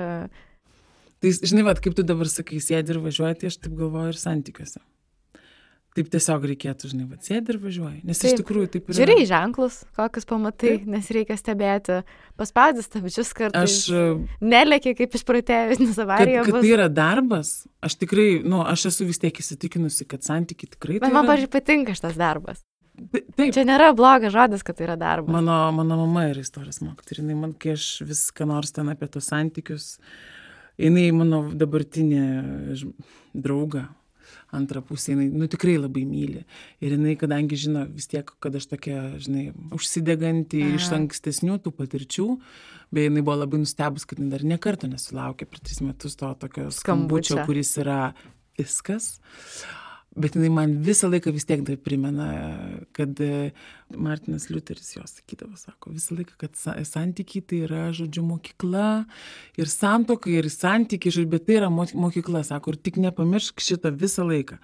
Tai, žinai, kaip tu dabar sakai, sėdi ir važiuoji, tai aš taip galvoju ir santykiuose. Taip tiesiog reikėtų, žinai, sėdi ir važiuoji. Nes taip, iš tikrųjų taip yra. Žiūrėjai ženklus, kokius pamatai, taip. Nes reikia stebėti. Paspaudys stabdžius kartais. Nelėki kaip išprotėjus, nes avarija bus. Kad tai yra darbas, aš tikrai, aš esu vis tiek įsitikinusi, kad santykiai tikrai tai yra. Bet man, pavyzdžiui, patinka šitas darbas. Taip. Čia nėra blogas žodis, kad tai yra darbas. Mano mama yra istorijos mokytoja. Ir man, kai aš vis ką nors ten apie tos santykius, jinai mano dabartinė drauga, antrą pusę, jinai tikrai labai myli. Ir jinai, kadangi žino vis tiek, kad aš tokia, žinai, užsideganti iš ankstesnių tų patirčių, bei jinai buvo labai nustebus, kad jinai dar ne kartą nesulaukė per 3 metus to tokio skambučio, kuris yra viskas. Bet jinai man visą laiką vis tiek tai primena, kad Martinas Liuteris jos sakydavo, sako, visą laiką, kad santykiai tai yra, žodžiu, mokykla ir santuoka ir santykiai, bet tai yra mokykla, sako, ir tik nepamiršk šitą visą laiką.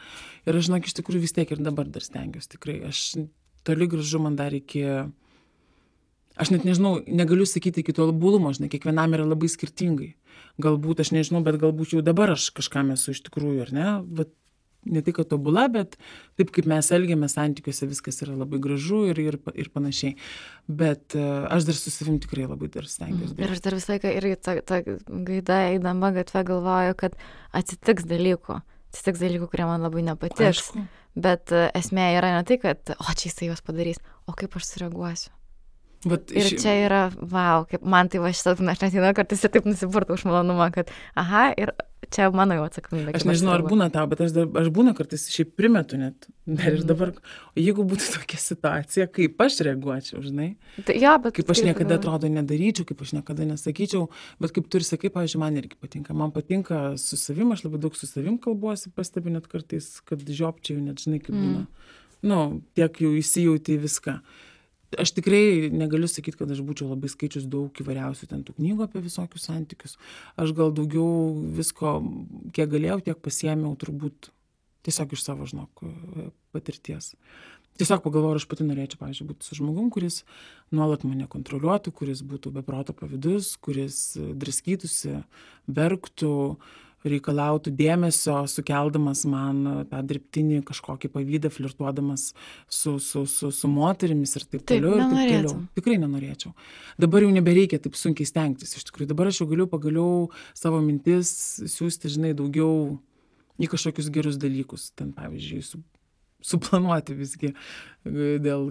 Ir aš, žinok, iš tikrųjų vis tiek ir dabar dar stengiuosi, tikrai. Aš toli gražu man dar iki... Aš net nežinau, negaliu sakyti iki tobulumo, žinai, kiekvienam yra labai skirtingai. Galbūt, aš nežinau, bet galbūt jau dabar aš kažkam esu iš tikrųjų, ar ne? Bet ne tik tobula, bet taip kaip mes elgiamės santykiuose, viskas yra labai gražu ir panašiai. Bet aš dar su savim tikrai labai dar stengiuosi. Ir aš dar visą laiką irgi ta gaida eidama gatve galvoju, kad atsitiks dalykų, kurie man labai nepatiks. Aišku. Bet esmė yra ne tai, kad čia jisai juos padarys, o kaip aš sureaguosiu. Ir čia yra, kaip man tai aš net nežinau, kartais ir taip nusipurtau už malonumą, kad ir čia mano jau atsakomybė. Aš nežinau, ar būna tau, bet aš būna kartais šiaip primetu net. Ir dabar, jeigu būtų tokia situacija, kaip aš reaguočiau, žinai? Kaip aš niekada atrodo nedaryčiau, kaip aš niekada nesakyčiau, bet kaip tu ir sakai, pavyzdžiui, man irgi patinka. Man patinka su savim, aš labai daug su savim kalbuosi, pastebiu net kartais, kad žiopčiau, net žinai, kaip būna. Tiek jau įsijauti viską. Aš tikrai negaliu sakyti, kad aš būčiau labai skaičius daug įvairiausių ten tų knygų apie visokius santykius. Aš gal daugiau visko, kiek galėjau, tiek pasiėmiau turbūt tiesiog iš savo, patirties. Tiesiog pagalvojau, aš pati norėčiau, pavyzdžiui, būti su žmogum, kuris nuolat mane kontroliuotų, kuris būtų be proto pavydus, kuris draskytųsi, verktų, reikalautų dėmesio, sukeldamas man tą dirbtinį kažkokį pavydą, flirtuodamas su moterimis ir taip toliau. Ir taip toliau. Tikrai nenorėčiau. Dabar jau nebereikia taip sunkiai stengtis. Iš tikrųjų, dabar aš jau galiu pagaliau savo mintis siūsti, žinai, daugiau į kažkokius gerus dalykus. Ten, pavyzdžiui, suplanuoti visgi,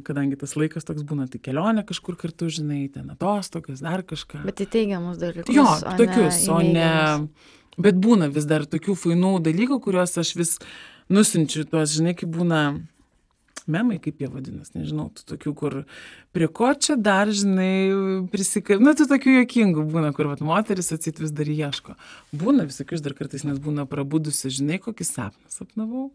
kadangi tas laikas toks būna, tai kelionė kažkur kartu, žinai, ten atostogas, dar kažką. Bet į teigiamus dalykus. Jo, tokius, o ne... Bet būna vis dar tokių fainų dalykų, kuriuos aš vis nusinčiu, tuos, žinai, kaip būna memai, kaip jie vadinas, nežinau, tu tokių, kur prie ko čia dar, žinai, tu tokių juokingų būna, kur vat moteris atsit vis dar ieško. Būna visokius dar kartais, nes būna prabudusi, žinai, kokį sapną sapnavau.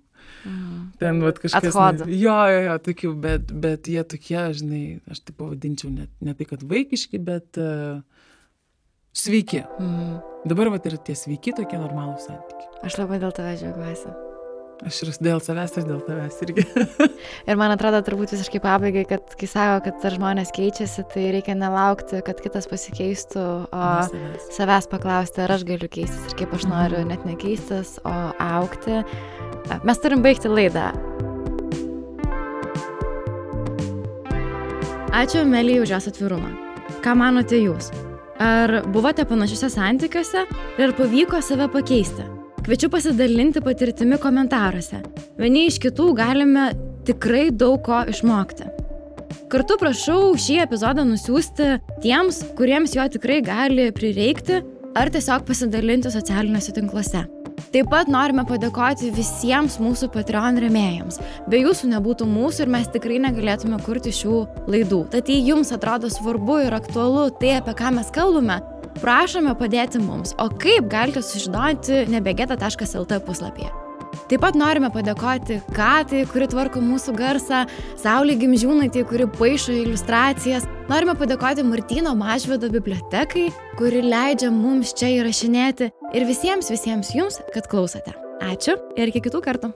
Ten vat kažkas... Jo, tokių, bet jie tokie, žinai, aš tai pavadinčiau ne tai, kad vaikiški, bet sveiki. Dabar vat ir tie sveiki, tokie normalūs santykiai. Aš labai dėl tavęs džiaugiuosi. Aš ir dėl savęs ir dėl tavęs irgi. Ir man atrodo turbūt visiškai pabaigai, kad kai sako, kad žmonės keičiasi, tai reikia nelaukti, kad kitas pasikeistų, o savęs paklausti, ar aš galiu keistis ir kaip aš noriu net nekeistis, o augti. Mes turim baigti laidą. Ačiū Amelijai už jos atvirumą. Ką manote jūs? Ar buvote panašiuose santykiuose ir ar pavyko save pakeisti? Kviečiu pasidalinti patirtimi komentaruose. Vieni iš kitų galime tikrai daug ko išmokti. Kartu prašau šį epizodą nusiųsti tiems, kuriems jo tikrai gali prireikti, ar tiesiog pasidalinti socialiniuose tinkluose. Taip pat norime padėkoti visiems mūsų Patreon rėmėjams. Be jūsų nebūtų mūsų ir mes tikrai negalėtume kurti šių laidų. Tad jei jums atrodo svarbu ir aktualu tai, apie ką mes kalbame, prašome padėti mums, o kaip galite sužinoti nebegeta.lt puslapyje. Taip pat norime padėkoti Katai, kuri tvarko mūsų garsą, Saulei Gimžiūnaitei, kuri paišo iliustracijas. Norime padėkoti Martyno Mažvydo bibliotekai, kuri leidžia mums čia įrašinėti ir visiems jums, kad klausote. Ačiū ir iki kitų kartų.